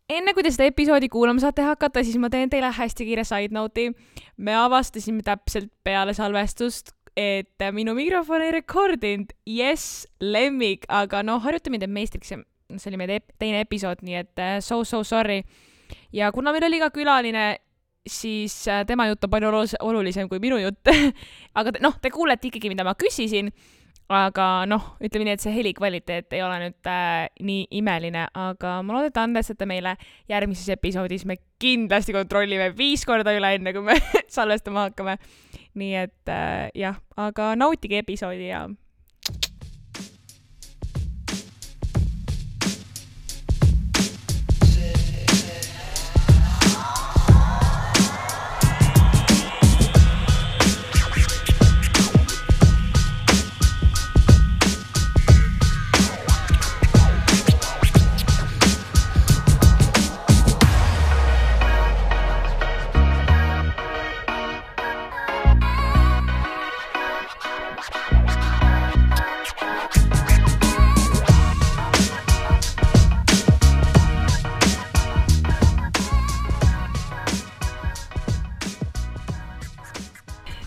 enne kui te seda episoodi kuulama saate hakata, siis ma teen teile hästi kiire side note'i. Me avastasime täpselt peale salvestust, et minu mikrofon ei rekordinud. Yes, lemmik, aga harjutame teid meistriks. See oli meie teine episood, nii et so sorry. Ja kuna meil oli ka külaline, siis tema jutt on palju olulisem kui minu jutt. Aga te kuulete ikkagi, mida ma küsisin. Aga ütleme nii, et see helikvaliteet ei ole nüüd nii imeline, aga ma loodan, et andestate meile järgmises episoodis. Me kindlasti kontrollime 5 korda üle enne, kui me salvestama hakkame. Nii et jah, aga nautige episoodi ja...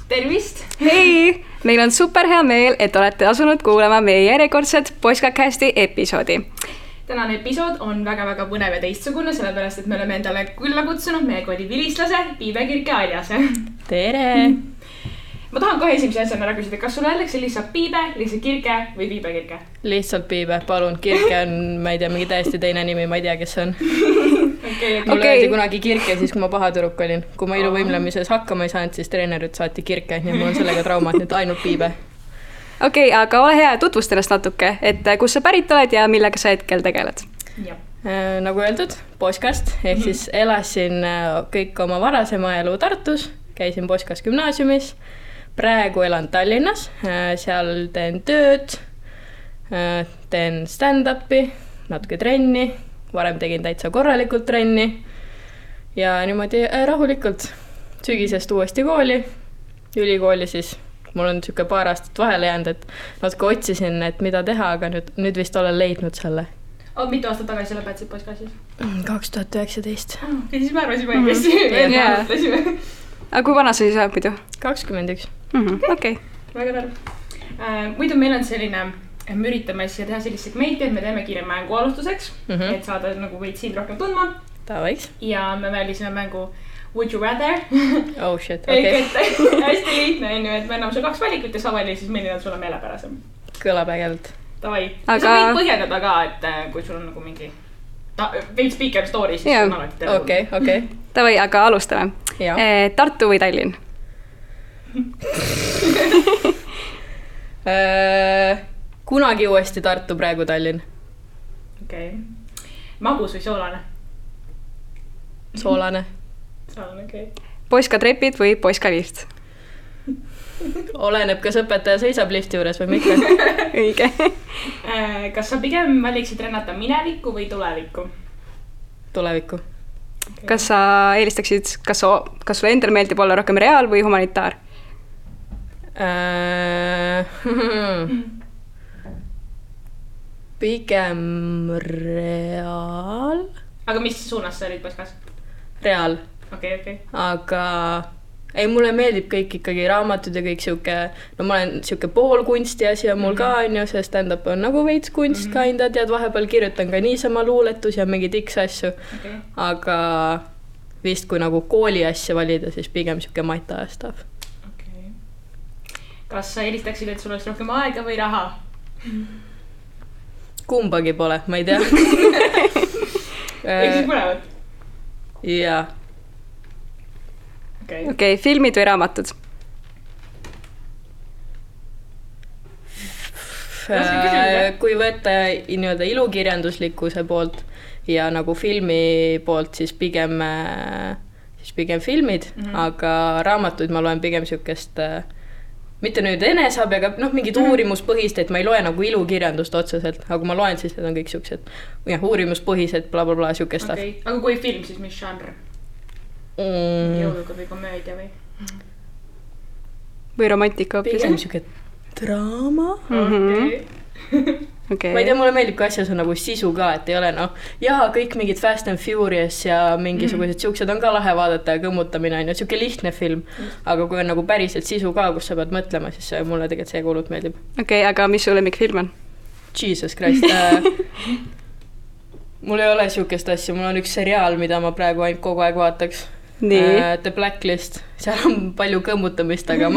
Tervist! Hei! Meil on super hea meel, et olete asunud kuulama meie järjekordset Poiskacasti episoodi. Tänane episood on väga-väga põnev ja teistsugune, sellepärast, et me oleme endale külla kutsunud meie kooli vilistlase, Piibe Kirke Aljase. Tere! Ma tahan kohe esimese asjana ära küsida, kas sulle öeldakse lihtsalt Piibe, lihtsalt Kirke või Piibe Kirke? Lihtsalt Piibe, palun. Kirke on, ma ei tea, mingi täiesti teine nimi, ma ei tea, kes see on. Mulle öeldi kunagi Kirke, siis kui ma paha tüdruk olin. Kui ma iluvõimlemises hakkama ei saanud, siis treenerid saati Kirke, nii mul on sellega traumad, nüüd ainult Piibe. Okei, aga ole hea, tutvust ennast natuke, et kus sa pärit oled ja millega sa hetkel tegeled? Nagu öeldud, Poiskast, ehk siis elasin kõik oma varasema elu Tartus, käisin Poiskas gümnaasiumis. Praegu elan Tallinnas, seal teen tööd, teen stand-upi, natuke trenni, varem tegin täitsa korralikult trenni ja niimoodi rahulikult sügisest uuesti kooli, ülikooli siis. Mul on siuke paar aastat vahele jäänud, et natuke otsisin, et mida teha, aga nüüd vist olen leidnud selle. Mitu aastat tagasi lõpetasid Poiskasis? 2019. Siis me arvasime õigesti. Aga kui vana sa siis oled muidu? 21. Okei. Väga tarv. Muidu meil on selline, me üritame siis teha sellist segmenti, et me teeme kiire mängu alustuseks, et saada nagu võid siin rohkem tundma. Tavaiks. Ja me välisime mängu Would you rather? Oh shit, okei. Hästi lihtne on ju, et me anname sulle 2 valikut ja sa vali siis milline on sulle meelepärasem. Kõlab ägelt. Tavai. Sa võid põhjendada ka, et kui sul on nagu mingi veid speaker story, siis on alati teada. Okei. Tavai, aga alustame. Tartu või Tallinn? Kunagi uuesti Tartu, praegu Tallinn. Okei. Magus või soolane? Soolane. Soolane, okei. Poiskatrepid või poiskalift? Oleneb, kas õpetaja seisab lifti juures või mitte. Õige. Kas sa pigem valiksid rennata minevikku või tulevikku? Tulevikku. Okay. Kas sa eelistaksid, kas sulle endal meeldib olla rohkem reaal või humanitaar? Pigem reaal. Aga mis suunas sa olid Poiskas? Reaal. Okei. Aga ei, mulle meeldib kõik ikkagi raamatud ja kõik siuke, ma olen siuke pool kunsti asi on mul ka on ju, see stand-up on nagu veits kunst kinda, tead, vahepeal kirjutan ka niisama luuletus ja mingi tiks asju. Aga vist kui nagu kooli asja valida, siis pigem siuke mata stuff. Okei. Kas sa eelistaksid, et sul oleks rohkem aega või raha? Kumbagi pole, ma ei tea. Ehk siis mõlemad? Jaa. Okei, filmid või raamatud? Kui võtta nii-öelda ilukirjanduslikkuse poolt ja nagu filmi poolt, siis pigem filmid, aga raamatuid ma loen pigem siukest, mitte nüüd enesabi, aga mingid uurimuspõhist, et ma ei loe nagu ilukirjandust otseselt, aga kui ma loen, siis need on kõik siuksed uurimuspõhised, blablabla, siukest. Aga kui film, siis mis žanr? Jõuluga või komöödia või? Või romantika hoopis? Pigem siuke draama. Okay. Ma ei tea, mulle meeldib, kui asjas on nagu sisu ka, et ei ole kõik mingid Fast and Furious ja mingisugused siuksed on ka lahe vaadata ja kõmmutamine on ju, siuke lihtne film. Aga kui on nagu päriselt sisu ka, kus sa pead mõtlema, siis mulle tegelikult see kuulut meeldib. Okei, aga mis su lemmikfilm on? Jesus Christ. Mul ei ole siukest asja, mul on üks seriaal, mida ma praegu ainult kogu aeg vaataks. The Blacklist. Seal on palju kõmmutamist, aga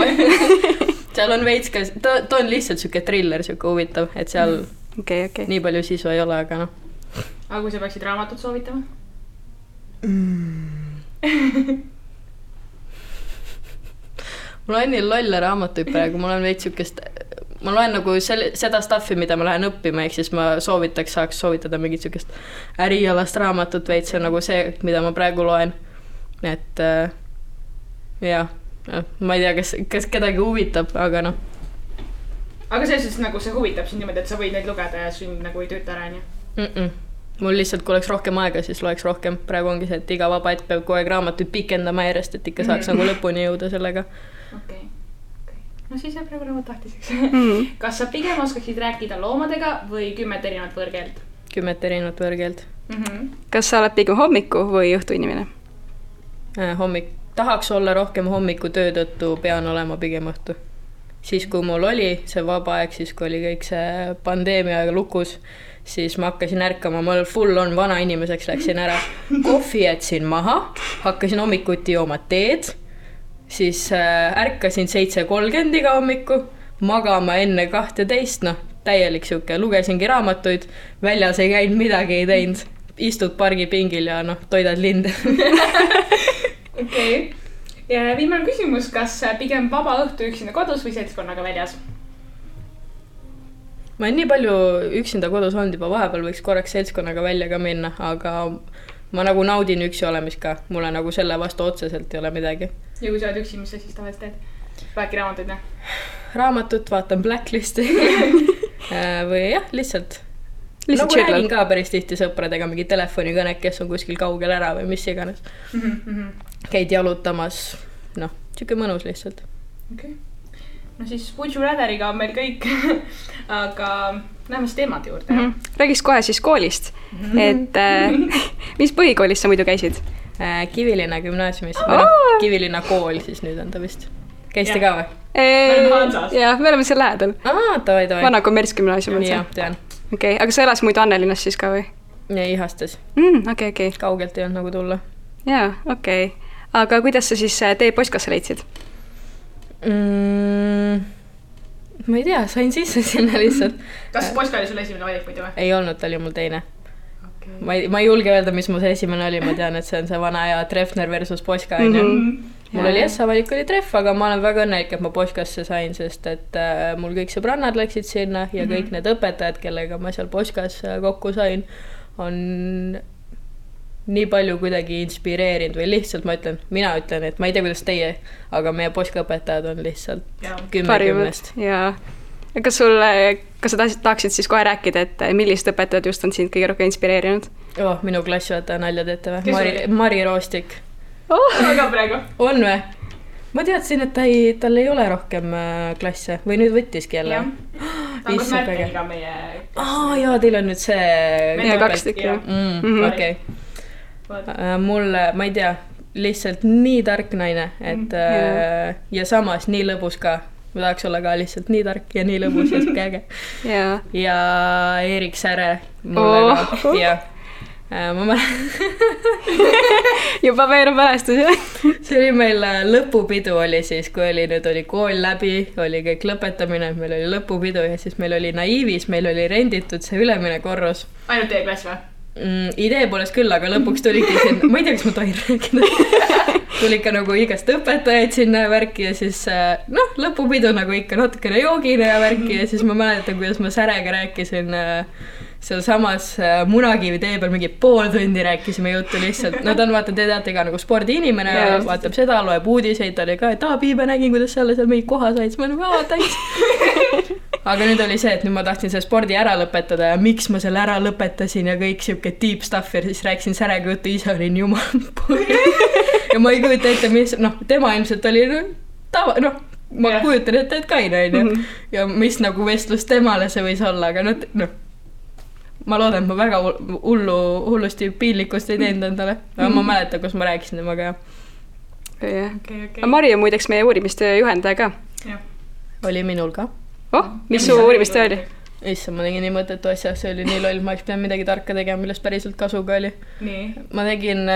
seal on veits ka, ta on lihtsalt siuke thriller, siuke huvitav, et seal Okay. nii palju sisu ei ole, aga Aga kui sa peaksid raamatut soovitama? Mul on nii lolle raamatuid praegu, mul on veits siukest, ma loen nagu seda stuffi, mida ma lähen õppima, ehk siis ma saaks soovitada mingit siukest ärialast raamatut veits, see on nagu see, mida ma praegu loen. Et ma ei tea, kas kedagi huvitab, aga Aga selles nagu see huvitab sind niimoodi, et sa võid neid lugeda ja sind nagu ei tööta ära, nii? Mul lihtsalt, kui oleks rohkem aega, siis loeks rohkem. Praegu ongi see, et iga vaba hetk peab kogu aeg raamatuid pikendama järjest, et ikka saaks nagu lõpuni jõuda sellega. Okei. No siis jääb praegu raamat tahtiseks. Kas sa pigem oskaksid rääkida loomadega või 10 erinevat võõrkeelt? 10 erinevat võõrkeelt. Kas sa oled pigem hommiku või õhtu inimene? Tahaks olla rohkem hommiku töö tõttu, pean olema pigem õhtu. Siis kui mul oli see vaba aeg, siis kui oli kõik see pandeemia lukus, siis ma hakkasin ärkama, ma full on vana inimeseks, läksin ära. Kohvi jätsin maha, hakkasin hommikuti jooma teed, siis ärkasin 7:30 iga hommiku, magama enne 12, täielik siuke, lugesingi raamatuid, väljas ei käinud, midagi ei teinud, istud pargipingil ja toidad linde. Okei. Ja viimane küsimus, kas pigem vaba õhtu üksinda kodus või seltskonnaga väljas? Ma olen nii palju üksinda kodus olnud juba, vahepeal võiks korraks seltskonnaga välja ka minna, aga ma nagu naudin üksi olemist ka. Mulle nagu selle vastu otseselt ei ole midagi. Ja kui sa oled üksi, mis sa siis tavaliselt teed? Vaadki raamatuid, Raamatut, vaatan Blacklisti või lihtsalt nagu räägin ka päris tihti sõpradega mingi telefonikõnek, kes on kuskil kaugel ära või mis iganes. Käid jalutamas, siuke mõnus lihtsalt. Okay. No siis Would You Ratheriga on meil kõik, aga läheme siis teemad juurde. Räägiks kohe siis koolist, et mis põhikoolis sa muidu käisid? Kivilinna gümnaasiumis, Kivilinna kool siis nüüd on ta vist. Käiste ka või? Me oleme Hansas. Jah, me oleme seal lähedal. Tavai. Vana kommertsgümnaasium on see. Jah, tean. Okei, aga sa elas muidu Annelinnas siis ka või? Ja Ihastes. Okei. Kaugelt ei olnud nagu tulla. Jaa, okei. Aga kuidas sa siis tee postkasse leidsid? Ma ei tea, sain sisse sinna lihtsalt. Kas Poska oli sul esimene valik muidu või? Ei olnud, ta oli mul teine. Okay. Ma ei julge öelda, mis mu see esimene oli, ma tean, et see on see vana ja Treffner versus Poska. Mul oli valik oli Treff, aga ma olen väga õnnelik, et ma Poskasse sain, sest et mul kõik sõbrannad läksid sinna ja kõik need õpetajad, kellega ma seal Poskas kokku sain, on nii palju kuidagi inspireerinud või lihtsalt mina ütlen, et ma ei tea, kuidas teie, aga meie Poska õpetajad on lihtsalt 10-10. Jaa. Kas sa tahaksid siis kohe rääkida, et millised õpetajad just on sind kõige rohkem inspireerinud? Minu klassijuhataja nalja teete või? Mari Roostik. Aga praegu? On või? Ma teadsin, et tal ei ole rohkem klasse või nüüd võttiski jälle. Ta on kas Märteniga meie... Jaa, teil on nüüd see... Meie 2 tükki. Okei. Mulle, ma ei tea, lihtsalt nii tark naine, et ja samas nii lõbus ka. Ma tahaks olla ka lihtsalt nii tark ja nii lõbus ja siuke äge. Ja Erik Säre mulle ka. Ja ma juba meenub mälestus, jah? See oli meil lõpupidu oli siis, kui nüüd oli kool läbi, oli kõik lõpetamine, meil oli lõpupidu ja siis meil oli naiivis, meil oli renditud see ülemine korrus. Ainult teie klass või? Idee poolest küll, aga lõpuks tuligi siin, ma ei tea, kas ma tohin rääkida, tuli ikka nagu igast õpetajaid sinna värki ja siis lõpupidu nagu ikka natukene joogine ja värki ja siis ma mäletan, kuidas ma Särega rääkisin seal samas Munakivi tee peal mingi pool tundi rääkisime juttu lihtsalt. Ta on, vaata, te teate ka nagu spordiinimene, vaatab seda, loeb uudiseid, ta oli ka, et Piibe nägin, kuidas seal mingi koha said, siis ma nagu, thanks. Aga nüüd oli see, et nüüd ma tahtsin selle spordi ära lõpetada ja miks ma selle ära lõpetasin ja kõik siuke deep stuff ja siis rääkisin Särega juttu, ise olin jumal ja ma ei kujuta ette, mis, tema ilmselt oli ma kujutan ette, et Kain on ja mis nagu vestlus temale see võis olla, aga ma loodan, et ma väga hullusti piinlikkust ei teinud endale. Aga ma mäletan, kus ma rääkisin temaga ja. Okay. Mari on muideks meie uurimistöö juhendaja ka. Oli minul ka. Mis su uurimistöö oli? Issa, ma tegin nii mõttetu asja, see oli nii loll, ma oleks pidanud midagi tarka tegema, millest päriselt kasuga oli. Ma tegin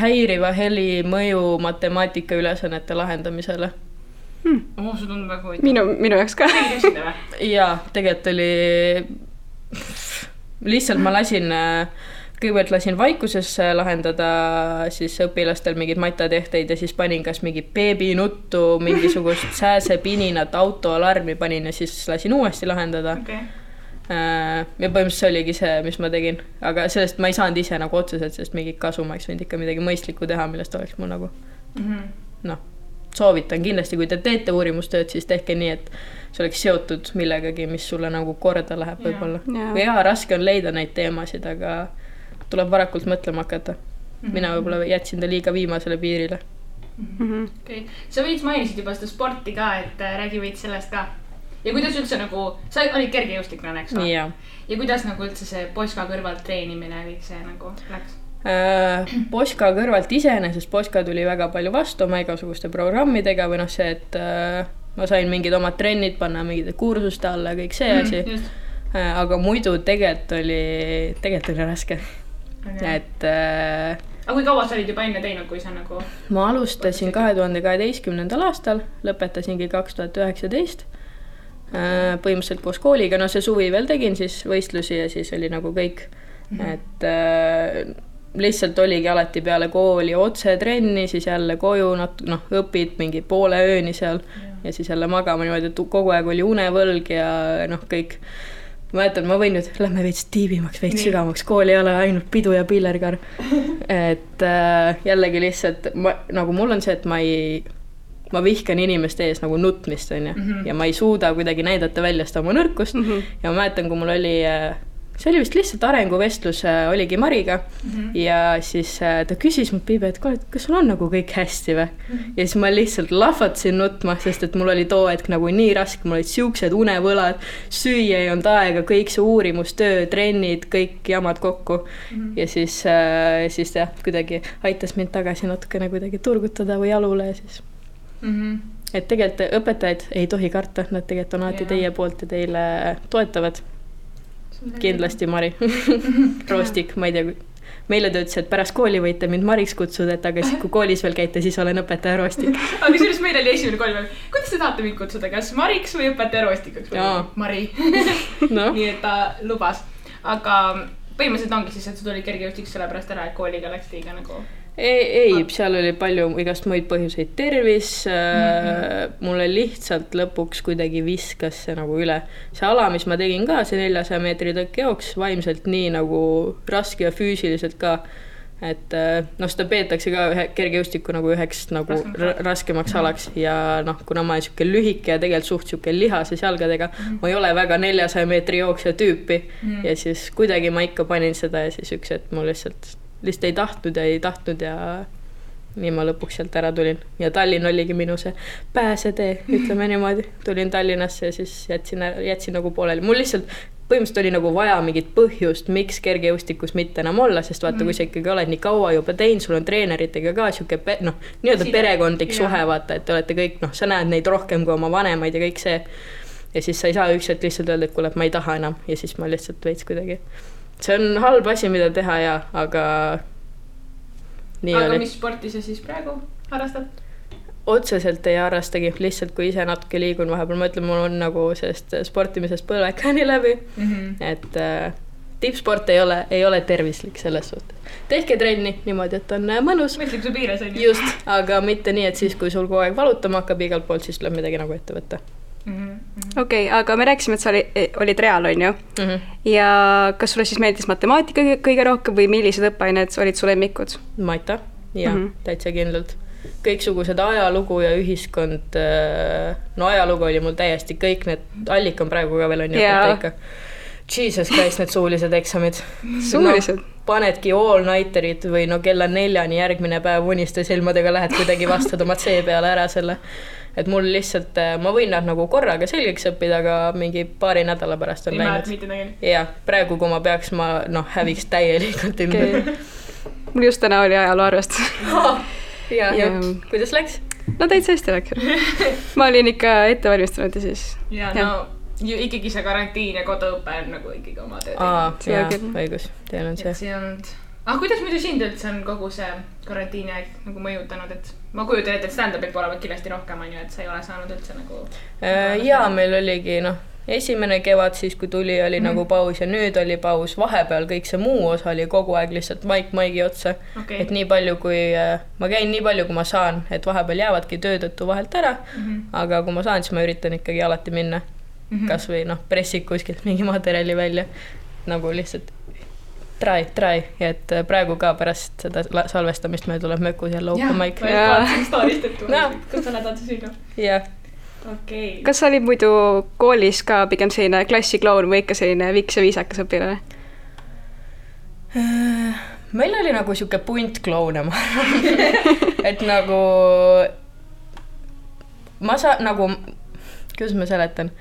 häiriva heli mõju matemaatika ülesannete lahendamisele. See tundub väga huvitav. Minu jaoks ka. Jaa, tegelikult oli lihtsalt ma kõigepealt lasin vaikuses lahendada siis õpilastel mingid matjatehteid ja siis panin kas mingi beebinuttu, mingisugust sääsepininat, autoalarmi panin ja siis lasin uuesti lahendada. Ja põhimõtteliselt see oligi see, mis ma tegin. Aga sellest ma ei saanud ise nagu otseselt, sest mingi kasu ma oleks võinud ikka midagi mõistlikku teha, millest oleks mul nagu soovitan kindlasti, kui te teete uurimustööd, siis tehke nii, et see oleks seotud millegagi, mis sulle nagu korda läheb võib-olla. Ja raske on leida neid teemasid, aga tuleb varakult mõtlema hakata. Mina võib-olla jätsin ta liiga viimasele piirile. Sa võiks mainisid juba seda sporti ka, et räägi võid sellest ka. Ja kuidas üldse nagu, sa olid kergejõustiklane, eks või? Ja kuidas nagu üldse see Poska kõrvalt treenimine kõik see nagu läks? Poska kõrvalt iseenesest Poska tuli väga palju vastu oma igasuguste programmidega või see, et ma sain mingid omad trennid panna mingide kursuste alla ja kõik see asi. Aga muidu tegelikult oli raske. Et aga kui kaua sa olid juba enne teinud, kui sa nagu ma alustasin 2012. aastal, lõpetasingi 2019 põhimõtteliselt koos kooliga, see suvi veel tegin siis võistlusi ja siis oli nagu kõik, et lihtsalt oligi alati peale kooli otse trenni, siis jälle koju õpid mingi poole ööni seal ja siis jälle magama niimoodi, et kogu aeg oli unevõlg ja kõik. Ma mäletan, ma võin nüüd, lähme veits tiibimaks, veits sügavamaks, kooli ei ole ainult pidu ja pillerkar. Et jällegi lihtsalt, nagu mul on see, et ma vihkan inimeste ees nagu nutmist on ja, ja ma ei suuda kuidagi näidata välja seda oma nõrkust ja ma mäletan, kui mul oli, see oli vist lihtsalt arenguvestlus, oligi Mariga ja siis ta küsis mul Piibe, et kas sul on nagu kõik hästi või? Ja siis ma lihtsalt lahvatsin nutma, sest et mul oli too hetk nagu nii raske, mul olid siuksed unevõlad, süüa ei olnud aega, kõik see uurimustöö, trennid, kõik jamad kokku ja siis jah, kuidagi aitas mind tagasi natukene kuidagi turgutada või jalule ja siis et tegelikult õpetajaid ei tohi karta, nad tegelikult on alati teie poolt ja teile toetavad. Kindlasti Mari. Roostik, ma ei tea, meile ta ütles, et pärast kooli võite mind Mariks kutsuda, et aga siis kui koolis veel käite, siis olen õpetaja Roostik. Aga sellest meil oli esimene kooli veel. Kuidas te tahate mind kutsuda, kas Mariks või õpetaja Roostikaks? Mari. Nii et ta lubas. Aga põhimõtteliselt ongi siis, et sa tuli kergejõustiks selle pärast ära, et kooliga läks liiga nagu... Ei, seal oli palju igast muid põhjuseid, tervis, mulle lihtsalt lõpuks kuidagi viskas see nagu üle. See ala, mis ma tegin ka, see 400 meetri tõkkejooks, vaimselt nii nagu raske ja füüsiliselt ka, et seda peetakse ka kergejõustiku nagu üheks nagu raskemaks alaks ja kuna ma olen siuke lühike ja tegelikult suht siuke lihases jalgadega, ma ei ole väga 400 meetri jooksja tüüpi ja siis kuidagi ma ikka panin seda ja siis üks, et mul lihtsalt ei tahtnud ja nii ma lõpuks sealt ära tulin. Ja Tallinn oligi minu see pääsetee, ütleme niimoodi. Tulin Tallinnasse ja siis jätsin nagu pooleli. Mul lihtsalt põhimõtteliselt oli nagu vaja mingit põhjust, miks kergejõustikus mitte enam olla, sest vaata, kui sa ikkagi oled nii kaua juba teinud, sul on treeneritega ka siuke nii-öelda perekondlik suhe, vaata, et te olete kõik, sa näed neid rohkem kui oma vanemaid ja kõik see. Ja siis sa ei saa ükselt lihtsalt öelda, et kuule, ma ei taha enam ja siis ma lihtsalt veits kuidagi. See on halb asi, mida teha ja, aga nii aga oli. Mis sporti sa siis praegu harrastad? Otseselt ei harrastagi, lihtsalt kui ise natuke liigun vahepeal, ma ütlen, mul on nagu sellest sportimisest põlvekani läbi, et tippsport ei ole tervislik selles suhtes. Tehke trenni niimoodi, et on mõnus. Mõistlik su piires on. Just, aga mitte nii, et siis kui sul kogu aeg valutama hakkab igalt poolt, siis tuleb midagi nagu ette võtta. Okei, aga me rääkisime, et sa olid real, on ju? Ja kas sulle siis meeldis matemaatika kõige rohkem või millised õppeained olid su lemmikud? Maita, jah, täitsa kindlalt. Kõiksugused ajalugu ja ühiskond, ajalugu oli mul täiesti kõik need, Allik on praegu ka veel on ikka. Jesus Christ, need suulised eksamid. Suulised? Panedki all-nighterid või kella 4 järgmine päev uniste silmadega lähed kuidagi vastad oma C peale ära selle. et mul lihtsalt, ma võin nad nagu korraga selgeks õppida, aga mingi paari nädala pärast on läinud. Ja praegu, kui ma peaks, ma häviks täielikult ümber. Mul just täna oli ajaloo arvestus. Ja kuidas läks? No täitsa hästi läks. Ma olin ikka ette valmistunud ja siis... Ja no ikkagi see karantiin ja koduõpe on nagu ikkagi oma töö. Jaa, õigus, teil on see. Kuidas muidu sind üldse on kogu see karantiini aeg nagu mõjutanud, et ma kujutan ette, et stand-upit pole kindlasti rohkem, et sa ei ole saanud üldse nagu... Jaa, meil oligi esimene kevad siis, kui tuli, oli nagu paus ja nüüd oli paus. Vahepeal kõik see muu osa oli kogu aeg lihtsalt maigi otsa. Et nii palju, kui ma käin nii palju, kui ma saan, et vahepeal jäävadki töötõttu vahelt ära, aga kui ma saan, siis ma üritan ikkagi alati minna. Kas või pressik kuskilt mingi materjali välja. Nagu lihtsalt try. Et praegu ka pärast seda salvestamist meil tuleb mökus jälle open mic. Jaa, ma stoorist, et kus sa lähed sinu. Jah. Okay. Kas sa olid muidu koolis ka pigem selline klassikloun või ikka selline viks ja viisakas õpilane? Meil oli nagu siuke punt kloune, ma arvan. Et nagu ma saan nagu, kuidas ma seletan?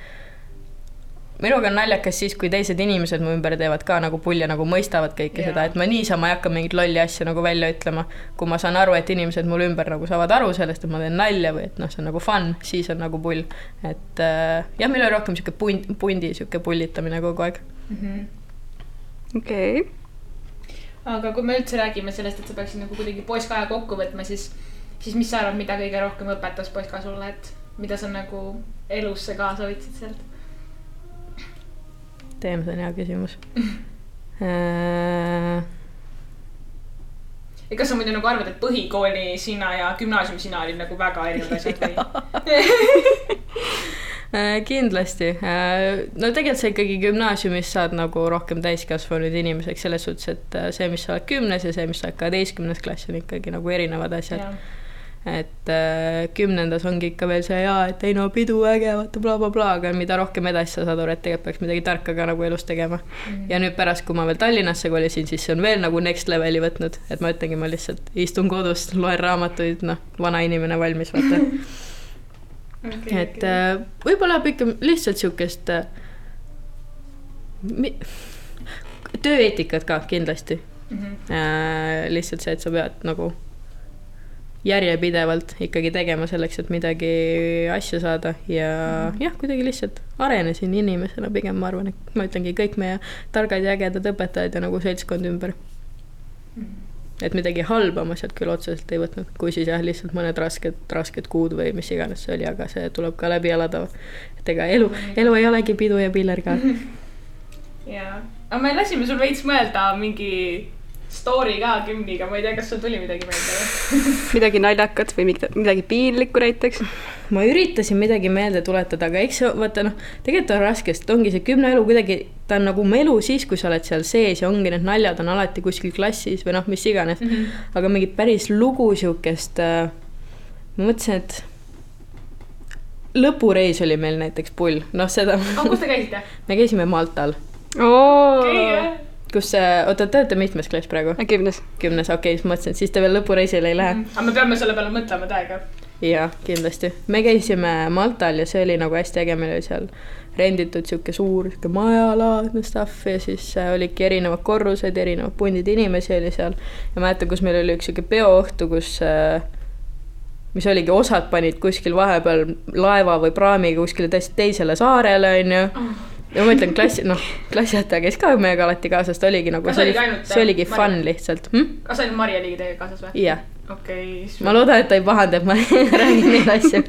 Minuga on naljakas siis, kui teised inimesed mu ümber teevad ka nagu pulja, nagu mõistavad kõike seda, et ma niisama ei hakka mingit lolli asja nagu välja ütlema. Kui ma saan aru, et inimesed mul ümber nagu saavad aru sellest, et ma teen nalja või et see on nagu fun, siis on nagu pull. Et jah, meil oli rohkem siuke pundi, siuke pullitamine kogu aeg. Okei. Aga kui me üldse räägime sellest, et sa peaksid nagu kuidagi poiskaja kokku võtma, siis mis sa arvad, mida kõige rohkem õpetas poiska sulle, et mida sa nagu elusse kaasa võtsid sealt? See on hea küsimus. Kas sa muidu nagu arvad, et põhikooli sina ja gümnaasium sina olid nagu väga erinevad asjad või? Kindlasti. No tegelikult sa ikkagi gümnaasiumis saad nagu rohkem täiskasvanud inimeseks selles suhtes, et see, mis sa oled 10. ja see, mis sa oled 12. klass on ikkagi nagu erinevad asjad. Et 10. ongi ikka veel see et ei no pidu äge, vaata bla, aga mida rohkem edasi sa saad aru, et tegelikult peaks midagi tarka ka nagu elus tegema. Ja nüüd pärast, kui ma veel Tallinnasse kolisin, siis see on veel nagu next leveli võtnud, et ma ütlengi, ma lihtsalt istun kodust, loen raamatuid, vana inimene valmis, vaata. Et võib-olla ikka lihtsalt siukest tööeetikat ka kindlasti. Lihtsalt see, et sa pead nagu järjepidevalt ikkagi tegema selleks, et midagi asja saada ja jah, kuidagi lihtsalt arenesin inimesena pigem, ma arvan, et ma ütlengi kõik meie targad ja ägedad õpetajad ja nagu seltskond ümber. Et midagi halba ma sealt küll otseselt ei võtnud, kui siis jah, lihtsalt mõned rasked kuud või mis iganes see oli, aga see tuleb ka läbi elada. Et ega elu ei olegi pidu ja piller ka. Jaa, aga me lasime sul veits mõelda mingi story ka kümniga, ma ei tea, kas sul tuli midagi meelde? Midagi naljakat või midagi piinlikku näiteks? Ma üritasin midagi meelde tuletada, aga eks vaata, tegelikult on raske, sest ongi see 10 elu kuidagi, ta on nagu elu siis, kui sa oled seal sees ja ongi need naljad on alati kuskil klassis või mis iganes. Aga mingi päris lugu siukest, ma mõtlesin, et lõpureis oli meil näiteks pull. Seda... kus te käisite? Me käisime Maltal. Kus te olete mitmes klass praegu? 10. 10, okei, siis mõtlesin, et siis te veel lõpureisile ei lähe. Aga me peame selle peale mõtlema täiega. Jaa, kindlasti. Me käisime Maltal ja see oli nagu hästi äge, meil oli seal renditud siuke suur majalaadne stuff ja siis olidki erinevad korrused, erinevad pundid inimesi oli seal. Ja mäletan, kus meil oli üks siuke peoõhtu, kus mis oligi osad panid kuskil vahepeal laeva või praamiga kuskile teisele saarele, on ju. Ja ma ütlen, klassiõhtaja käis ka meiega alati kaasas, ta oligi nagu, see oligi fun lihtsalt. Kas ainult Marja ligi teiega kaasas või? Jah. Okay, ma loodan, et ta ei pahanda, et ma räägin neid asju.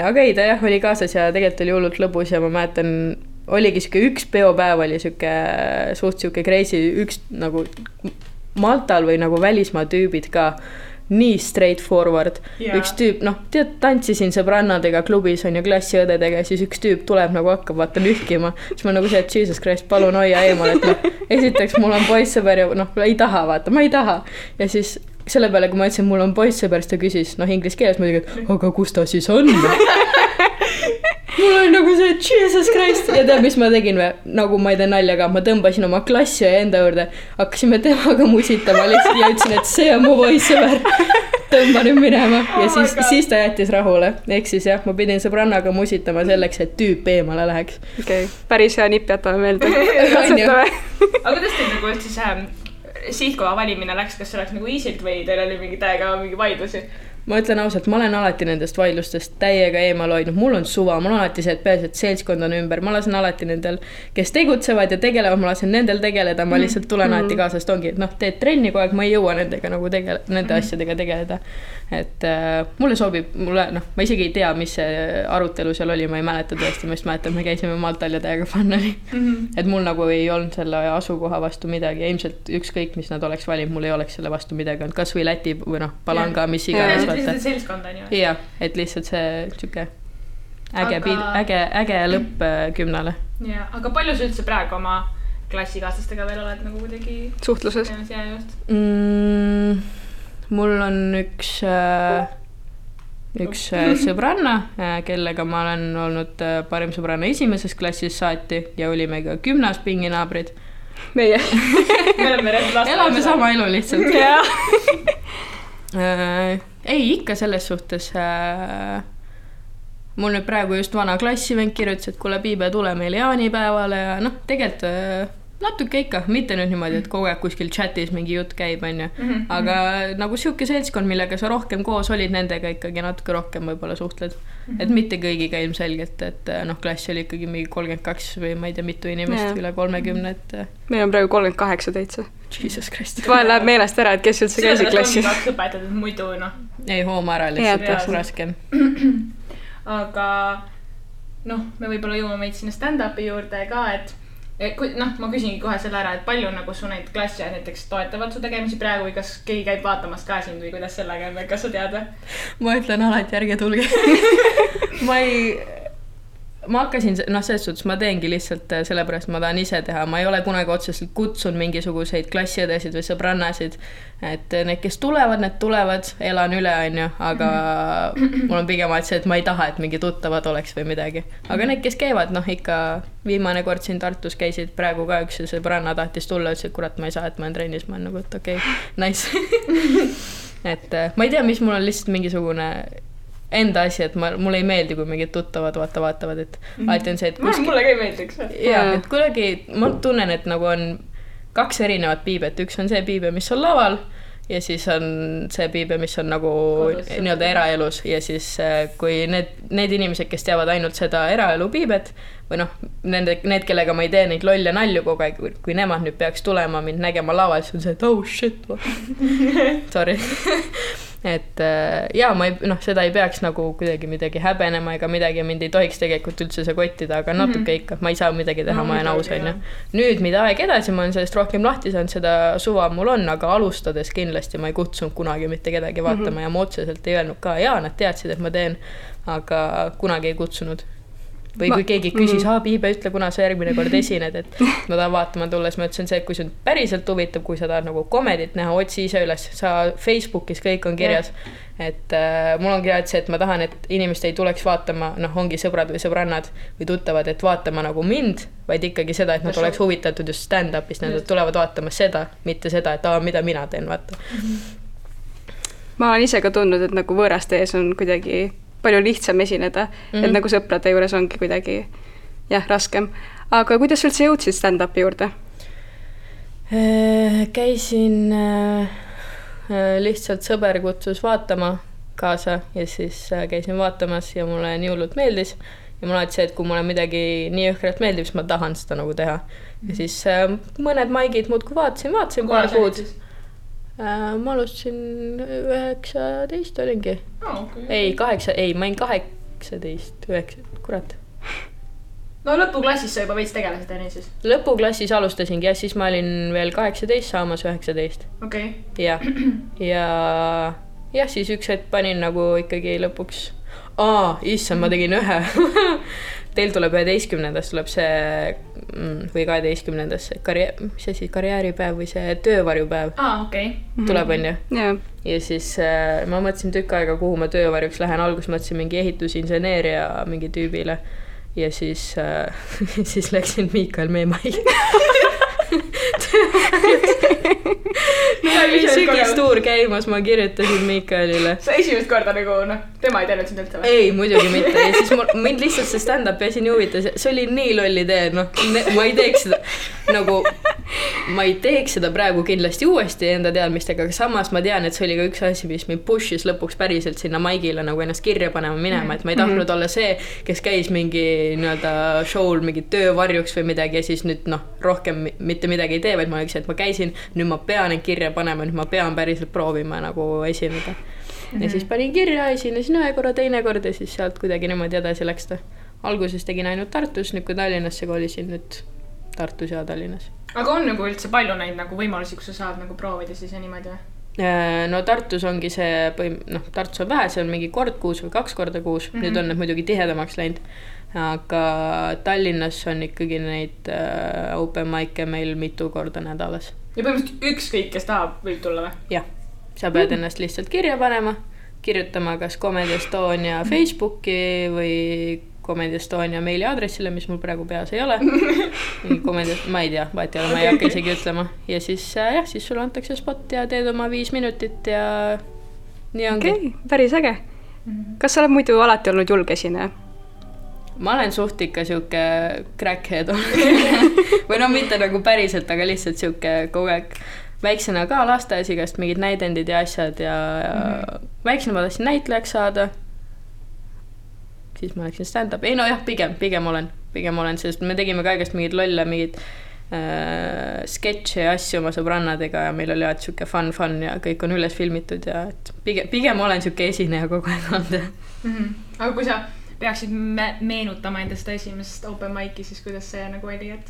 Aga ei, ta jah oli kaasas ja tegelikult oli hullult lõbus ja ma mäletan, oligi siuke üks peopäev oli siuke suht siuke crazy, üks nagu Maltal või nagu välismaa tüübid ka. Nii straightforward. Üks tüüp, tantsisin sõbrannadega klubis on ju klassiõdedega ja siis üks tüüp tuleb nagu hakkab vaata nühkima. Siis ma nagu see, et Jesus Christ, palun hoia eemal, et esiteks mul on poissõber ja ei taha vaata, ma ei taha. Ja siis selle peale, kui ma ütlesin, mul on poissõber, siis ta küsis, inglise keeles muidugi, et aga kus ta siis on? Mul oli nagu see, Jesus Christ. Ja tead, mis ma tegin või? Nagu ma ei tee naljaga, ma tõmbasin oma klassi ja enda juurde. Hakkasime temaga musitama lihtsalt ja ütlesin, et see on mu poissõber. tõmba nüüd minema ja siis ta jättis rahule. Ehk siis jah, ma pidin sõbrannaga musitama selleks, et tüüp eemale läheks. Okei, päris hea nipp jätame meelde. Katsetame. Aga kuidas teil nagu siis sihtkoha valimine läks, kas see läks nagu easilt või teil oli mingi täiega mingi vaidlusi? Ma ütlen ausalt, ma olen alati nendest vaidlustest täiega eemal hoidnud, mul on suva, mul on alati see, et peaasi, et seltskond on ümber, ma lasen alati nendel, kes tegutsevad ja tegelevad, ma lasen nendel tegeleda, ma lihtsalt tulen alati kaasast, ongi, et teed trenni kogu aeg, ma ei jõua nendega nagu nende asjadega tegeleda. Et mulle sobib, ma isegi ei tea, mis see arutelu seal oli, ma ei mäleta tõesti, ma just mäletan, me käisime Maltal ja täiega fun oli. Et mul nagu ei olnud selle asukoha vastu midagi, ilmselt ükskõik, mis nad oleks valinud, mul ei oleks selle vastu midagi, kas või Läti või Palanga, mis iganes. Seltskond on ju. Jah, et lihtsalt see tšuke äge lõpp 10-le. Ja, aga palju sa üldse praegu oma klassikaaslastega veel oled nagu kuidagi suhtluses? Mul on üks sõbranna, kellega ma olen olnud parim sõbranna esimeses klassis saati ja olime ka 10. pinginaabrid. Meie elame sama elu lihtsalt. Ei, ikka selles suhtes. Mul nüüd praegu just vana klassivend kirjutas, et kuule Piibe, tule meil jaanipäevale ja tegelikult natuke ikka, mitte nüüd niimoodi, et kogu aeg kuskil chatis mingi jutt käib, on ju. Aga nagu siuke seltskond, millega sa rohkem koos olid, nendega ikkagi natuke rohkem võib-olla suhtled. Et mitte kõigiga ilmselgelt, et klass oli ikkagi mingi 32 või ma ei tea mitu inimest üle 30, et meil on praegu 38 täitsa. Jesus Christ. Vahel läheb meelest ära, et kes üldse käisid klassis. Seda ongi õpetatud muidu, Ei, hooma ära lihtsalt raskem. Aga me võib-olla jõuame meid sinna stand-upi juurde ka, et ma küsingi kohe selle ära, et palju nagu su neid klassi näiteks toetavad su tegemisi praegu või kas keegi käib vaatamas ka sind või kuidas sellega on, kas sa tead? Ma ütlen alati, ärge tulge. Ma hakkasin, selles suhtes ma teengi lihtsalt sellepärast, ma tahan ise teha. Ma ei ole kunagi otseselt kutsun mingisuguseid klassiõdesid või sõbrannasid. Et need, kes tulevad, need tulevad, elan üle, on ju. Aga mul on pigem see, et ma ei taha, et mingi tuttavad oleks või midagi. Aga need, kes käivad, ikka viimane kord siin Tartus käisid praegu ka üks sõbranna tahtis tulla, ütles, et kurat, ma ei saa, et ma olen trennis. Ma olen nagu, et okei, nice. Et ma ei tea, mis mul on lihtsalt mingisugune enda asi, et mulle ei meeldi, kui mingid tuttavad vaatavad, et alati on see, et mulle ka ei meeldiks. Jaa, et kuidagi ma tunnen, et nagu on 2 erinevat piibet. Üks on see piibe, mis on laval ja siis on see piibe, mis on nagu nii-öelda eraelus ja siis kui need inimesed, kes teavad ainult seda eraelu piibet või need, kellega ma ei tee neid lolle nalju kogu aeg, kui nemad nüüd peaks tulema mind nägema laval, siis on see, et oh shit, sorry. Et ma seda ei peaks nagu kuidagi midagi häbenema ega midagi, mind ei tohiks tegelikult üldse see kottida, aga natuke ikka, ma ei saa midagi teha, ma olen aus, on ju. Nüüd, mida aeg edasi, ma olen sellest rohkem lahti saanud, seda suva mul on, aga alustades kindlasti ma ei kutsunud kunagi mitte kedagi vaatama ja ma otseselt ei öelnud ka, nad teadsid, et ma teen, aga kunagi ei kutsunud. Või kui keegi küsis, Piibe, ütle, kuna sa järgmine kord esined, et ma tahan vaatama tulles, ma ütlesin see, et kui see on päriselt huvitav, kui sa tahad nagu komedit näha, otsi ise üles, sa Facebookis kõik on kirjas, et mul on kirjad see, et ma tahan, et inimesed ei tuleks vaatama, ongi sõbrad või sõbrannad või tuttavad, et vaatama nagu mind, vaid ikkagi seda, et nad oleks huvitatud just stand-upist, nad tulevad vaatama seda, mitte seda, et mida mina teen, vaata. Ma olen ise ka tundnud, et nagu võõraste ees on kuidagi palju lihtsam esineda, et nagu sõprade juures ongi kuidagi raskem. Aga kuidas üldse jõudsid stand-upi juurde? Käisin lihtsalt sõber kutsus vaatama kaasa ja siis käisin vaatamas ja mulle nii hullult meeldis ja mul alati see, et kui mulle midagi nii õhkralt meeldib, siis ma tahan seda nagu teha. Ja siis mõned maigid muudkui vaatasin paar kuud. Ma alustasin 19 olingi. Ei, ma olin 18, 9, kurat. No lõpuklassis sa juba veits tegelesid enne siis? Lõpuklassis alustasingi ja siis ma olin veel 18 saamas 19. Okei. Ja siis üks hetk panin nagu ikkagi lõpuks issand, ma tegin ühe. Teil tuleb 11. tuleb see või 12. karjääripäev või see töövarjupäev. Tuleb, on ju? Ja siis ma mõtlesin tükk aega, kuhu ma töövarjuks lähen. Algus mõtlesin mingi ehitusinseneeria mingi tüübile ja siis läksin Miikael Meemai. tuur käimas, ma kirjutasin Miikaelile. Sa esimest korda nagu, tema ei teadnud sind üldse või? Ei, muidugi mitte. Ja siis mind lihtsalt see stand-upi asi nii huvitas. See oli nii lolli tee, ma ei teeks seda ma ei teeks seda praegu kindlasti uuesti enda teadmistega, aga samas ma tean, et see oli ka üks asi, mis mind push'is lõpuks päriselt sinna maigile nagu ennast kirja panema minema, et ma ei tahtnud olla see, kes käis mingi nii-öelda show'l mingi töövarjuks või midagi ja siis nüüd rohkem mitte midagi ei tee, vaid ma oleksin, et ma käisin, nüüd ma pean end kirja panema, nüüd ma pean päriselt proovima nagu esineda. Ja siis panin kirja, esinesin ühe korra, teine kord ja siis sealt kuidagi niimoodi edasi läks ta. Alguses tegin ainult Tartus, nüüd kui Tallinnasse kolisin, nüüd Tartus ja Tallinnas. Aga on nagu üldse palju neid nagu võimalusi, kus sa saad nagu proovida siis ja niimoodi või? No Tartus ongi see, Tartus on vähe, see on mingi kord kuus või 2 korda kuus, nüüd on need muidugi tihedamaks läinud, aga Tallinnas on ikkagi neid open mic'e meil mitu korda nädalas. Ja põhimõtteliselt ükskõik, kes tahab, võib tulla või? Jah, sa pead ennast lihtsalt kirja panema, kirjutama kas Comedy Estonia Facebooki või Comedy Estonia meili aadressile, mis mul praegu peas ei ole. Ma ei tea, vaat ei ole, ma ei hakka isegi ütlema. Ja siis, siis sulle antakse spot ja teed oma 5 minutit ja nii ongi. Okei, päris äge. Kas sa oled muidu alati olnud julge esineja? Ma olen suht ikka siuke crackhead või mitte nagu päriselt, aga lihtsalt siuke kogu aeg. Väiksena ka lasteaias igast mingid näidendid ja asjad ja väiksena ma tahtsin näitlejaks saada. Siis ma läksin stand-up. Ei pigem olen, sest me tegime ka igast mingid lolle, mingid sketše ja asju oma sõbrannadega ja meil oli alati siuke fun ja kõik on üles filmitud ja pigem olen siuke esineja kogu aeg olnud. Aga kui sa peaksid meenutama enda seda esimest open mic'i, siis kuidas see nagu oli, et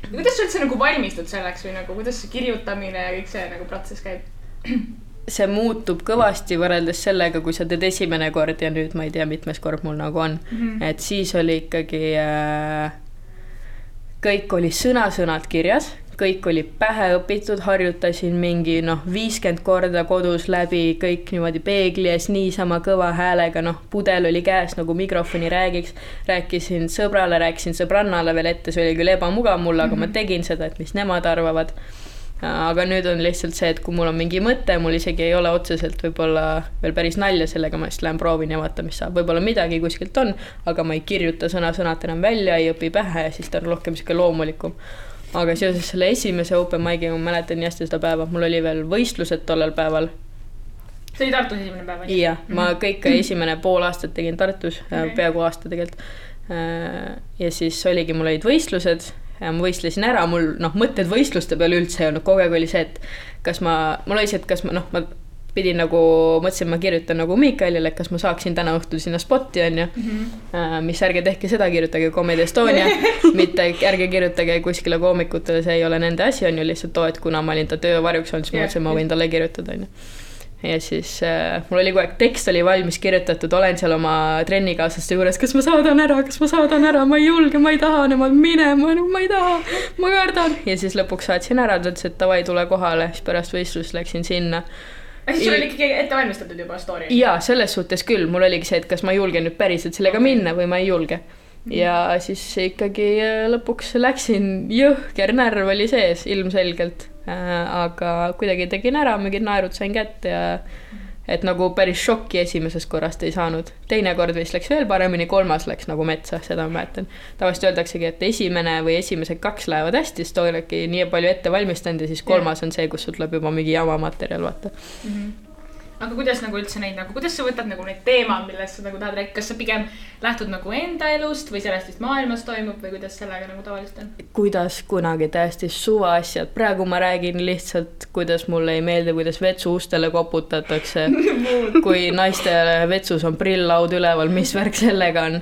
kuidas sa üldse nagu valmistud selleks või nagu kuidas see kirjutamine ja kõik see nagu protsess käib? See muutub kõvasti võrreldes sellega, kui sa teed esimene kord ja nüüd ma ei tea, mitmes kord mul nagu on. Et siis oli ikkagi kõik oli sõnad kirjas, kõik oli pähe õpitud, harjutasin mingi 50 korda kodus läbi, kõik niimoodi peegli ees niisama kõva häälega, pudel oli käes nagu mikrofoni rääkisin sõbrale, rääkisin sõbrannale veel ette, see oli küll ebamugav mulle, aga ma tegin seda, et mis nemad arvavad. Aga nüüd on lihtsalt see, et kui mul on mingi mõte, mul isegi ei ole otseselt võib-olla veel päris nalja sellega, ma just lähen proovin ja vaata, mis saab. Võib-olla midagi kuskilt on, aga ma ei kirjuta sõnad enam välja, ei õpi pähe ja siis ta on rohkem siuke loomulikum. Aga seoses selle esimese open mic'i, ma mäletan nii hästi seda päeva, mul oli veel võistlused tollel päeval. See oli Tartus esimene päeva? Jah, ma kõik esimene pool aastat tegin Tartus, peaaegu aasta tegelikult. Ja siis oligi, mul olid võistlused. Ja ma võistlesin ära, mul mõtted võistluste peale üldse ei olnud, kogu aeg oli see, et mul oli see, et kas ma pidin nagu, mõtlesin, ma kirjutan nagu Miikaelile, et kas ma saaksin täna õhtul sinna spotti, on ju, mis ärge tehke seda, kirjutage Comedy Estonia, mitte ärge kirjutage kuskile koomikutele, see ei ole nende asi, on ju lihtsalt too, et kuna ma olin ta töövarjuks olnud, siis ma mõtlesin, ma võin talle kirjutada, on ju. Ja siis mul oli kogu aeg, tekst oli valmis kirjutatud, olen seal oma trennikaaslaste juures, kas ma saadan ära, ma ei julge, ma ei taha nemad minema, ma ei taha, ma kardan. Ja siis lõpuks saatsin ära, ta ütles, et davai, tule kohale, siis pärast võistlust läksin sinna. Siis sul oli ikkagi ette valmistatud juba story? Jaa, selles suhtes küll, mul oligi see, et kas ma julgen nüüd päriselt sellega minna või ma ei julge. Ja siis ikkagi lõpuks läksin, jõhker närv oli sees ilmselgelt. Aga kuidagi tegin ära, mingid naerud sain kätte ja et nagu päris šokki esimesest korrast ei saanud. Teine kord vist läks veel paremini, 3. läks nagu metsa, seda ma mäletan. Tavaliselt öeldaksegi, et esimene või esimesed 2 lähevad hästi, siis olegi nii palju ette valmistanud ja siis 3. on see, kus sul tuleb juba mingi jama materjal, vaata. Aga kuidas nagu üldse neid, nagu, kuidas sa võtad nagu neid teemad, millest sa nagu tahad rääkida, kas sa pigem lähtud nagu enda elust või sellest, mis maailmas toimub või kuidas sellega nagu tavaliselt on? Kuidas kunagi täiesti suva asjad. Praegu ma räägin lihtsalt, kuidas mulle ei meeldi, kuidas vetsu ustele koputatakse, kui naiste vetsus on prillaud üleval, mis värk sellega on.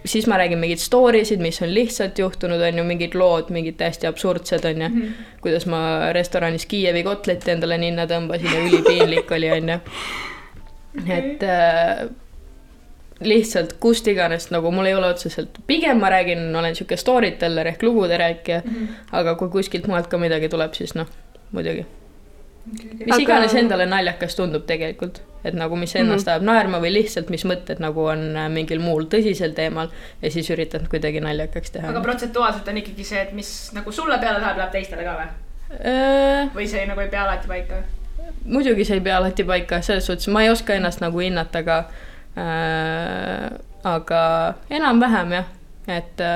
Siis ma räägin mingid storisid, mis on lihtsalt juhtunud, on ju mingid lood, mingid täiesti absurdsed, on ju. Kuidas ma restoranis Kiievi kotleti endale ninna tõmbasin ja ülipiinlik oli, on ju. Et lihtsalt kust iganes, nagu mul ei ole otseselt. Pigem ma räägin, olen siuke storyteller ehk lugude rääkija, aga kui kuskilt maalt ka midagi tuleb, siis muidugi. Mis iganes endale naljakas tundub tegelikult, et nagu mis ennast ajab naerma või lihtsalt mis mõtted nagu on mingil muul tõsisel teemal ja siis üritan kuidagi naljakaks teha. Aga protsentuaalselt on ikkagi see, et mis nagu sulle peale läheb teistele ka või? Või see nagu ei pea alati paika? muidugi see ei pea alati paika, selles suhtes ma ei oska ennast nagu hinnata, aga enam-vähem jah, et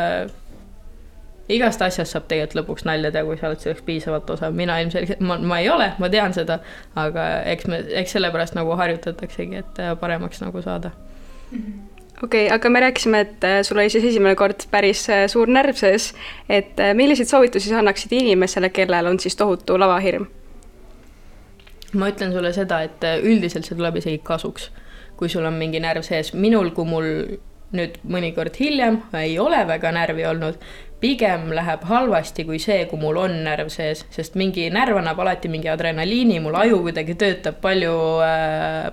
igast asjast saab tegelikult lõpuks nalja teha, kui sa oled selleks piisavalt osa. Mina ilmselgelt, ma ei ole, ma tean seda, aga eks sellepärast nagu harjutataksegi, et paremaks nagu saada. Okei, aga me rääkisime, et sul oli siis esimene kord päris suur närv sees, et milliseid soovitusi sa annaksid inimesele, kellel on siis tohutu lavahirm? Ma ütlen sulle seda, et üldiselt see tuleb isegi kasuks, kui sul on mingi närv sees. Minul, kui mul nüüd mõnikord hiljem ei ole väga närvi olnud, pigem läheb halvasti kui see, kui mul on närv sees, sest mingi närv annab alati mingi adrenaliini, mul aju kuidagi töötab palju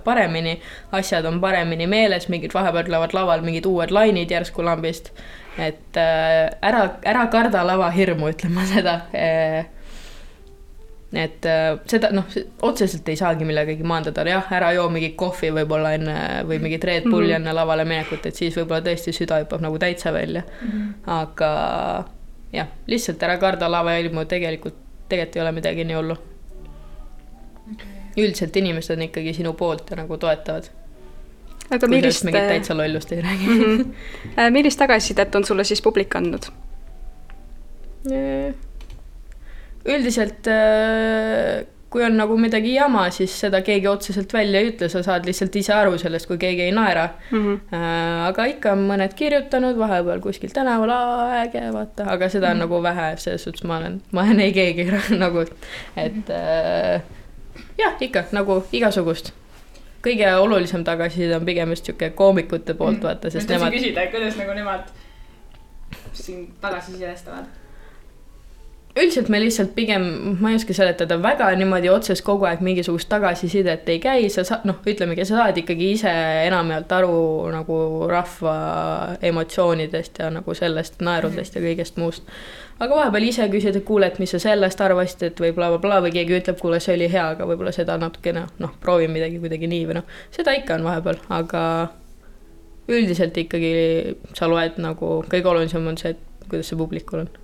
paremini, asjad on paremini meeles, mingid vahepeal tulevad laval mingid uued lainid järsku lambist, et ära karda lavahirmu, ütlen ma seda. Et seda, otseselt ei saagi millegagi maandada, jah, ära joo mingi kohvi võib-olla enne või mingit Red Bulli enne lavale minekut, et siis võib-olla tõesti süda hüppab nagu täitsa välja. Aga jah, lihtsalt ära karda lavahirmu, tegelikult ei ole midagi nii hullu. Üldiselt inimesed on ikkagi sinu poolt ja nagu toetavad. Aga kui millist... mingit täitsa lollust ei räägi. Millist tagasisidet on sulle siis publik andnud? Üldiselt, kui on nagu midagi jama, siis seda keegi otseselt välja ei ütle, sa saad lihtsalt ise aru sellest, kui keegi ei naera. Aga ikka on mõned kirjutanud, vahepeal kuskil tänaval äge, vaata, aga seda on nagu vähe, selles suhtes ma olen ei keegi nagu, et jah, ikka nagu igasugust. Kõige olulisem tagasiside on pigem just siuke koomikute poolt, vaata, sest nemad... küsida, kuidas nagu nemad siin tagasisidestavad? Üldiselt me lihtsalt pigem, ma ei oska seletada, väga niimoodi otses kogu aeg mingisugust tagasisidet ei käi, ütlemegi, sa saad ikkagi ise enamjaolt aru nagu rahva emotsioonidest ja nagu sellest naerudest ja kõigest muust. Aga vahepeal ise küsid, et kuule, et mis sa sellest arvasid, et või bla, või keegi ütleb, kuule, see oli hea, aga võib-olla seda natukene, proovi midagi kuidagi nii või seda ikka on vahepeal, aga üldiselt ikkagi sa loed nagu, kõige olulisem on see, et kuidas see publikul on.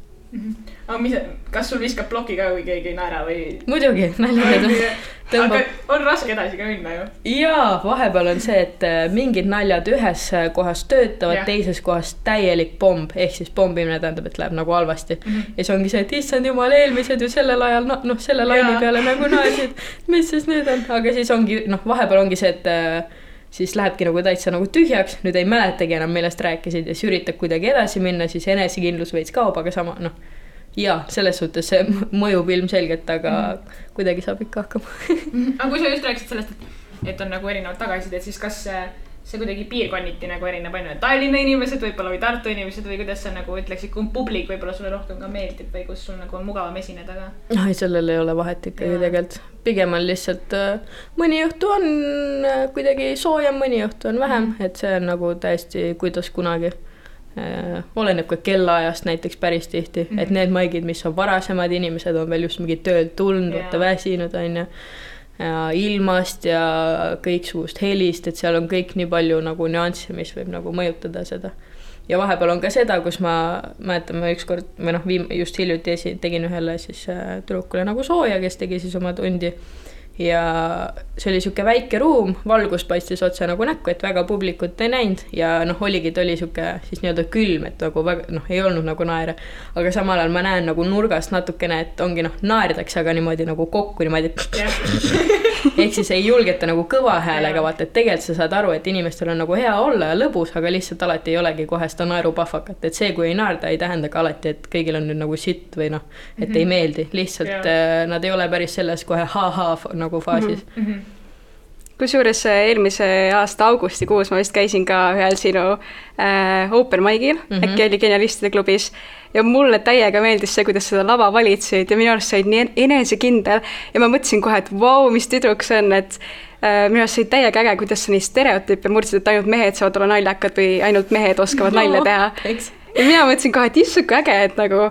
Aga kas sul viskab ploki ka, kui keegi ei naera või? Muidugi, naljad. Aga on raske edasi ka minna ju? Jaa, vahepeal on see, et mingid naljad ühes kohas töötavad, teises kohas täielik pomb, ehk siis pombimine tähendab, et läheb nagu halvasti. Ja see ongi see, et issand jumal, eelmised ju sellel ajal, selle laini peale nagu naersid, mis siis nüüd on? Aga siis ongi, vahepeal ongi see, et siis lähebki nagu täitsa nagu tühjaks, nüüd ei mäletagi enam, millest rääkisid ja siis üritab kuidagi edasi minna, siis enesekindlus veits kaob, aga sama, jaa, selles suhtes see mõjub ilmselgelt, aga kuidagi saab ikka hakkama. Aga kui sa just rääkisid sellest, et on nagu erinevad tagasisid, siis kas see kuidagi piirkonniti nagu erineb ainult Tallinna inimesed võib-olla või Tartu inimesed või kuidas sa nagu ütleksid, kui publik võib-olla sulle rohkem ka meeldib või kus sul nagu on mugavam esineda ka? Ei, sellel ei ole vahet ikkagi tegelikult. Pigem on lihtsalt mõni õhtu on kuidagi soojem, mõni õhtu on vähem, et see on nagu täiesti kuidas kunagi. Oleneb ka kellaajast näiteks päris tihti, et need maigid, mis on varasemad inimesed on veel just mingi töölt tulnud, võtta väsinud on ja ilmast ja kõiksugust helist, et seal on kõik nii palju nagu nüansse, mis võib nagu mõjutada seda. Ja vahepeal on ka seda, kus ma mäletan, ma ükskord, või just hiljuti tegin ühele siis tüdrukule nagu sooja, kes tegi siis oma tundi. Ja see oli siuke väike ruum, valgus paistis otse nagu näkku, et väga publikut ei näinud ja oligi, ta oli siuke siis nii-öelda külm, et nagu väga, ei olnud nagu naere, aga samal ajal ma näen nagu nurgast natukene, et ongi naerdakse, aga niimoodi nagu kokku niimoodi, ehk siis ei julgeta nagu kõva häälega, vaata, et tegelikult sa saad aru, et inimestel on nagu hea olla ja lõbus, aga lihtsalt alati ei olegi kohe seda naerupahvakat, et see, kui ei naerda, ei tähenda ka alati, et kõigil on nüüd nagu sitt või et ei meeldi, lihtsalt nad ei ole päris selles kohe nagu faasis. Kusjuures eelmise aasta augustikuus ma vist käisin ka ühel sinu open mic'il, äkki oli Genialistide klubis ja mulle täiega meeldis see, kuidas seda lava valitsid ja minu arust said nii enesekindel ja ma mõtlesin kohe, et vau, mis tüdruk see on, et minu arust said täiega äge, kuidas sa nii stereotüüpe murdsid, et ainult mehed saavad olla naljakad või ainult mehed oskavad nalja teha. Ja mina mõtlesin kohe, et issuke äge, et nagu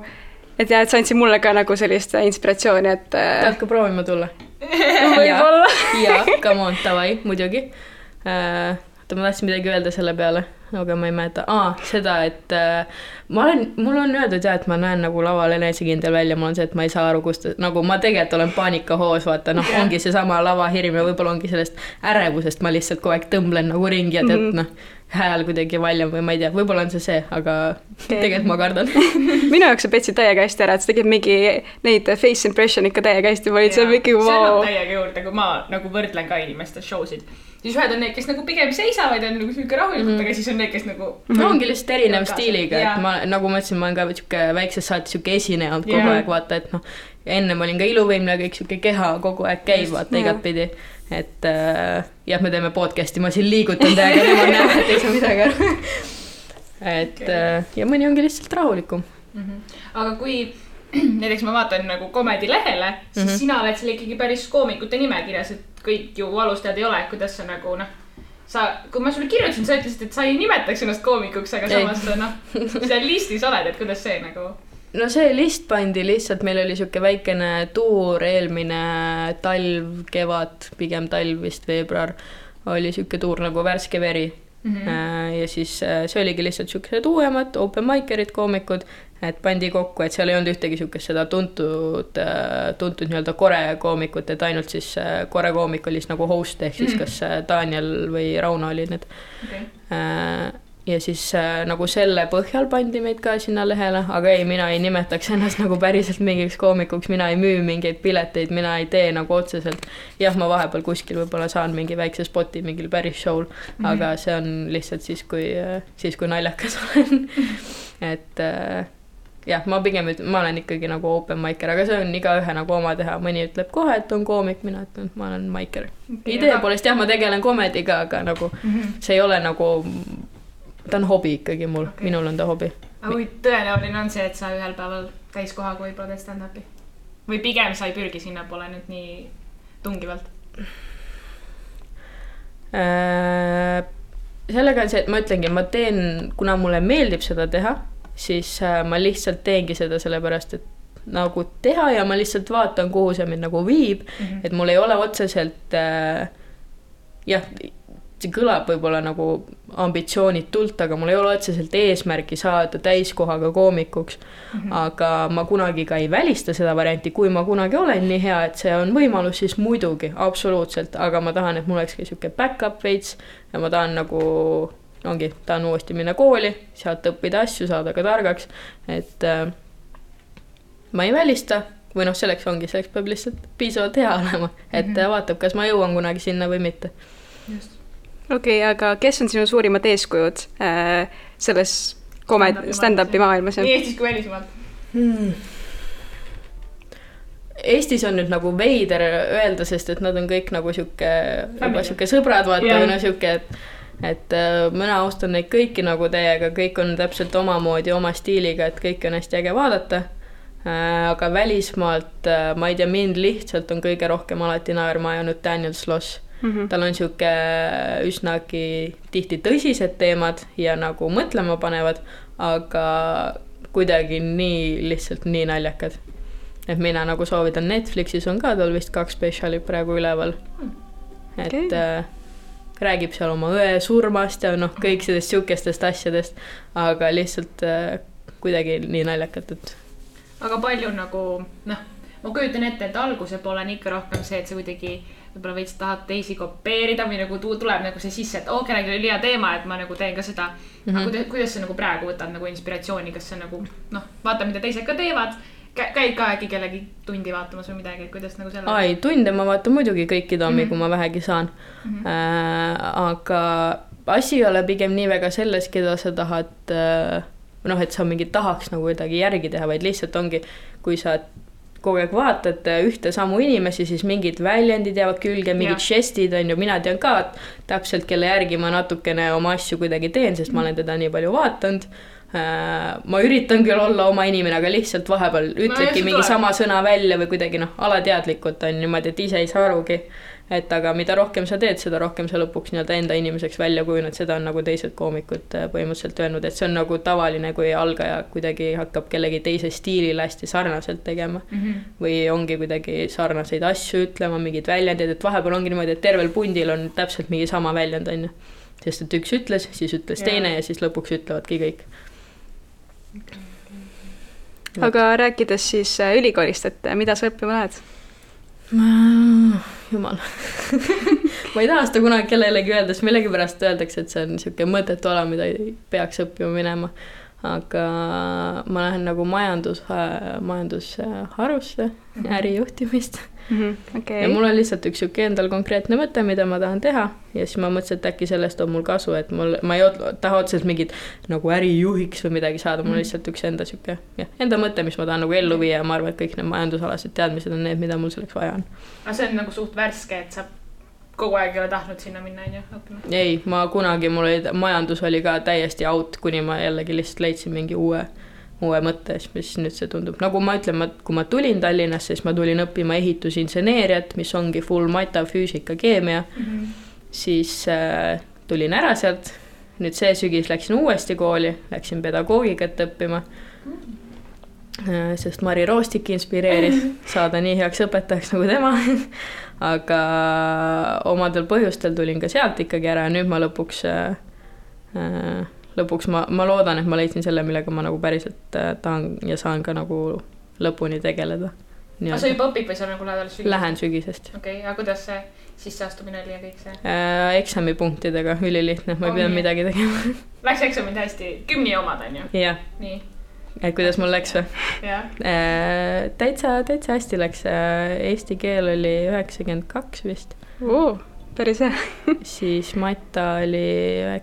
et sa andsid mulle ka nagu sellist inspiratsiooni, et tahad ka proovima tulla? Võib-olla. Ja, come on, tavai, muidugi. Ma tahtsin midagi öelda selle peale, aga ma ei mäleta, seda, et mul on öeldud ja, et ma näen nagu laval enesekindel välja, mul on see, et ma ei saa aru, kust, nagu ma tegelikult olen paanikahoos, vaata, noh, ongi see sama lavahirm ja võib-olla ongi sellest ärevusest, ma lihtsalt kogu aeg tõmblen nagu ringi ja tead, noh, hääl kuidagi valjam või ma ei tea, võib-olla on see, aga tegelikult ma kardan. Minu jaoks sa petsid täiega hästi ära, et sa tegid mingi neid face impression ikka täiega hästi, ma olin seal mingi see annab täiega juurde, kui ma nagu võrdlen ka inimeste showsid. Siis ühed on need, kes nagu pigem seisavad ja on nagu selline rahulikult, aga siis on need, kes nagu... ongi lihtsalt erinev stiiliga, et ma, nagu ma ütlesin, ma olen ka siuke väiksest saati siuke esineja olnud kogu aeg, vaata, et noh, ennem olin ka iluvõimle, kõik siuke keha kogu aeg käib, vaata, igat pidi. Et jah, me teeme podcasti, ma siin liigutan täiega, tema näeb, et ei saa midagi aru. Et ja mõni ongi lihtsalt rahulikum. Aga kui näiteks ma vaatan nagu Comedy lehele, siis sina oled seal ikkagi päris koomikute nimekirjas, et kõik ju alustajad ei ole, kuidas sa nagu kui ma sulle kirjutasin, sa ütlesid, et sa ei nimetaks ennast koomikuks, aga samas seal listis oled, et kuidas see nagu... No see list pandi lihtsalt, meil oli siuke väikene tuur eelmine talv, kevad, pigem talv vist veebruar, oli siuke tuur nagu Värske veri. Ja siis see oligi lihtsalt siukesed uuemad open mikerid, koomikud, et pandi kokku, et seal ei olnud ühtegi siukest seda tuntud nii-öelda kore koomikut, et ainult siis kore koomik oli nagu host, ehk siis kas Daniel või Rauno oli need. Ja siis nagu selle põhjal pandi meid ka sinna lehele, aga ei, mina ei nimetaks ennast nagu päriselt mingiks koomikuks, mina ei müü mingeid pileteid, mina ei tee nagu otseselt. Jah, ma vahepeal kuskil võib-olla saan mingi väikse spoti mingil päris show'l, aga see on lihtsalt siis, kui naljakas olen. Et jah, ma olen ikkagi nagu open micer, aga see on igaühe nagu oma teha. Mõni ütleb kohe, et on koomik, mina ütlen, ma olen micer. Idee poolest jah, ma tegelen komediga, aga nagu see ei ole nagu... Ta on hobi ikkagi mul, minul on ta hobi. Aga kui tõenäoline on see, et sa ühel päeval täiskohaga võib-olla teed stand-upi? Või pigem sa ei pürgi sinna pole nüüd nii tungivalt? Sellega on see, et ma ütlengi, ma teen, kuna mulle meeldib seda teha, siis ma lihtsalt teengi seda sellepärast, et nagu teha ja ma lihtsalt vaatan, kuhu see mind nagu viib, et mul ei ole otseselt jah, see kõlab võib-olla nagu ambitsioonitult, aga mul ei ole otseselt eesmärki saada täiskohaga koomikuks, aga ma kunagi ka ei välista seda varianti, kui ma kunagi olen nii hea, et see on võimalus, siis muidugi, absoluutselt, aga ma tahan, et mul oleks ka siuke back-up veits ja ma tahan nagu, tahan uuesti minna kooli, sealt õppida asju, saada ka targaks, et ma ei välista, või selleks peab lihtsalt piisavalt hea olema, et vaatab, kas ma jõuan kunagi sinna või mitte. Just. Okei, aga kes on sinu suurimad eeskujud selles stand-upi maailmas? Nii Eestis kui välismaalt? Eestis on nüüd nagu veider öelda, sest et nad on kõik nagu siuke sõbrad, vaata, või siuke, et mina austan neid kõiki nagu teiega, kõik on täpselt omamoodi, oma stiiliga, et kõik on hästi äge vaadata. Aga välismaalt, ma ei tea, mind lihtsalt on kõige rohkem alati naerma ajanud Daniel Sloss. Tal on siuke üsnagi tihti tõsised teemad ja nagu mõtlema panevad, aga kuidagi lihtsalt nii naljakad. Et mina nagu soovitan Netflixis on ka, tal vist 2 spetsiali praegu üleval. Et räägib seal oma õe surmast ja kõik sellest siukestest asjadest, aga lihtsalt kuidagi nii naljakat, et... Aga palju nagu, ma kujutan ette, et alguse poole on ikka rohkem see, et see kuidagi võib-olla veits tahad teisi kopeerida või nagu tuleb nagu see sisse, et kellegi oli hea teema, et ma nagu teen ka seda. Aga kuidas sa nagu praegu võtad nagu inspiratsiooni, kas see nagu, vaata, mida teised ka teevad, käid ka äkki kellegi tundi vaatamas või midagi, et kuidas nagu selle... Ai, tunde ma vaatan muidugi kõiki tommi, kui ma vähegi saan. Aga asi ei ole pigem nii väga selles, keda sa tahad, et sa mingi tahaks nagu kuidagi järgi teha, vaid lihtsalt ongi, kui sa kogu aeg vaatad ühte samu inimesi, siis mingid väljendid jäävad külge, mingid žestid on ju, mina tean ka täpselt, kelle järgi ma natukene oma asju kuidagi teen, sest ma olen teda nii palju vaatanud. Ma üritan küll olla oma inimene, aga lihtsalt vahepeal ütledki mingi sama sõna välja või kuidagi alateadlikult on niimoodi, et ise ei saa arugi. Et aga mida rohkem sa teed, seda rohkem sa lõpuks enda inimeseks välja kujuned, seda on nagu teised koomikud põhimõtteliselt öelnud, et see on nagu tavaline, kui algaja kuidagi hakkab kellegi teise stiilile hästi sarnaselt tegema või ongi kuidagi sarnaseid asju ütlema, mingid väljendid, et vahepeal ongi niimoodi, et tervel pundil on täpselt mingi sama väljend, on ju. sest et üks ütles, siis ütles teine ja siis lõpuks ütlevadki kõik. Aga rääkides siis ülikoolist, et mida sa õppima lähed? Jumal. Ma ei taha seda kunagi kellelegi öelda, sest millegipärast öeldakse, et see on niisugune mõttetu ala, mida ei peaks õppima minema. Aga ma lähen nagu majandusharusse, ärijuhtimist. Okay. Ja mul on lihtsalt üks siuke endal konkreetne mõte, mida ma tahan teha ja siis ma mõtlesin, et äkki sellest on mul kasu, et ma ei taha otseselt mingit nagu ärijuhiks või midagi saada, mul on lihtsalt üks enda siuke enda mõte, mis ma tahan nagu ellu viia ja ma arvan, et kõik need majandusalased teadmised on need, mida mul selleks vaja on. Aga see on nagu suht värske, et sa kogu aeg ei ole tahtnud sinna minna, on ju, õppima? Ei, ma kunagi, majandus oli ka täiesti out, kuni ma jällegi lihtsalt leidsin mingi uue mõtte, mis nüüd see tundub. Nagu ma ütlen, kui ma tulin Tallinnasse, siis ma tulin õppima ehitusinseneeriat, mis ongi full mata, füüsika, keemia. Siis tulin ära sealt. Nüüd see sügis läksin uuesti kooli, läksin pedagoogikat õppima. Sest Mari Roostik inspireeris saada nii heaks õpetajaks nagu tema. Aga omadel põhjustel tulin ka sealt ikkagi ära ja nüüd ma lõpuks ma loodan, et ma leidsin selle, millega ma nagu päriselt tahan ja saan ka nagu lõpuni tegeleda. Aga sa juba õpid või sa nagu lähed alles sügisest? Lähen sügisest. Okei, aga kuidas see sisseastumine oli ja kõik see? Eksamipunktidega, ülilihtne, ma ei pidanud midagi tegema. Läks eksamid hästi, 10 omad on ju? Jah. Nii. Et kuidas mul läks või? Jah. Täitsa hästi läks. Eesti keel oli 92 vist. Päris hea. Siis Mata oli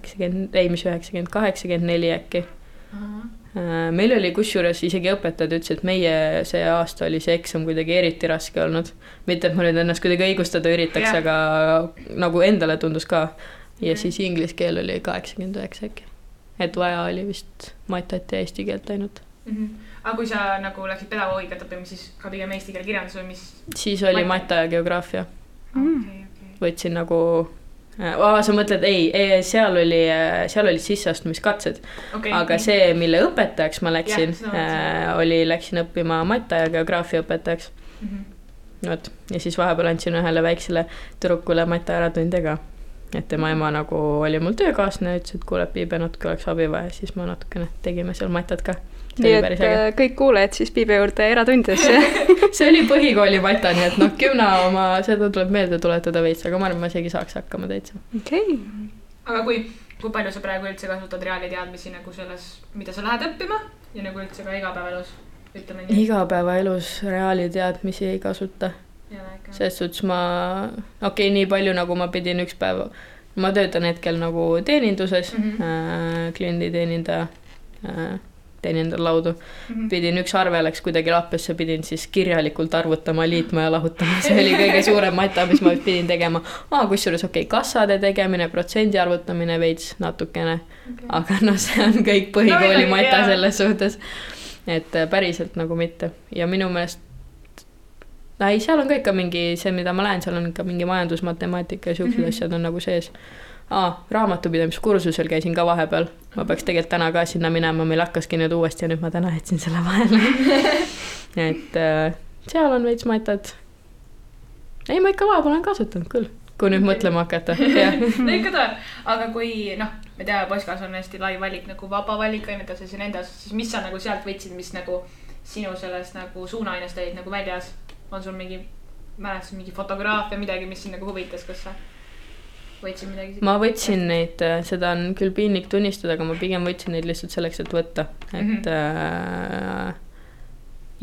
84 äkki. Meil oli kusjuures isegi õpetajad ütles, et meie see aasta oli see eksam kuidagi eriti raske olnud. Mitte, et ma nüüd ennast kuidagi õigustada üritaks, aga nagu endale tundus ka. Ja siis inglise keel oli 89 äkki. Et vaja oli vist Matat ja eesti keelt ainult. Aga kui sa nagu läksid pedagoogikat õppima, siis ka pigem eesti keel kirjandus või mis? Siis oli Mata ja geograafia. Võtsin nagu, sa mõtled, seal oli sisseastumiskatsed, aga see, mille õpetajaks ma läksin, läksin õppima Mata ja geograafia õpetajaks. Ja siis vahepeal andsin ühele väiksele tüdrukule Mata äratunde ka, et tema ema nagu oli mul töökaasne, ütles, et kuule, Piibe natuke oleks abi vaja, siis ma natukene tegime seal Matat ka. Nii et kõik kuulejad siis Piibe juurde eratundidesse. See oli põhikooli Mata, nii et 10 oma, seda tuleb meelde tuletada veits, aga ma arvan, ma isegi saaks hakkama täitsa. Okay. Aga kui palju sa praegu üldse kasutad reaaliteadmisi nagu selles, mida sa lähed õppima ja nagu üldse ka igapäevaelus? Igapäevaelus reaaliteadmisi ei kasuta. Selles suhtes nii palju nagu ma pidin üks päev, ma töötan hetkel nagu teeninduses, kliendi teenindar laudu. Pidin üks arve läks kuidagi lappesse, pidin siis kirjalikult arvutama, liitma ja lahutama. See oli kõige suurem Mata, mis ma pidin tegema. Kusjuures kassade tegemine, protsendi arvutamine veits natukene. Aga see on kõik põhikooli Mata selles suhtes. Et päriselt nagu mitte. Ja minu meelest seal on ka ikka mingi, see mida ma lähen, seal on ikka mingi majandusmatemaatika ja siuksed asjad on nagu sees. Raamatupidamiskursusel käisin ka vahepeal. Ma peaks tegelikult täna ka sinna minema, meil hakkaski nüüd uuesti ja nüüd ma täna jätsin selle vahele. Et seal on veits Matat. Ei, ma ikka vahepeal olen kasutanud küll, kui nüüd mõtlema hakata. Ikka ta, aga kui, me tea, Poskas on hästi lai valik, nagu vaba valik ainetes ja nende osas, siis mis sa nagu sealt võtsid, mis nagu sinu sellest nagu suunaainest olid nagu väljas? On sul mingi fotograafia, midagi, mis sind nagu huvitas, kas sa võtsin midagi? Ma võtsin neid, seda on küll piinlik tunnistada, aga ma pigem võtsin neid lihtsalt selleks, et võtta.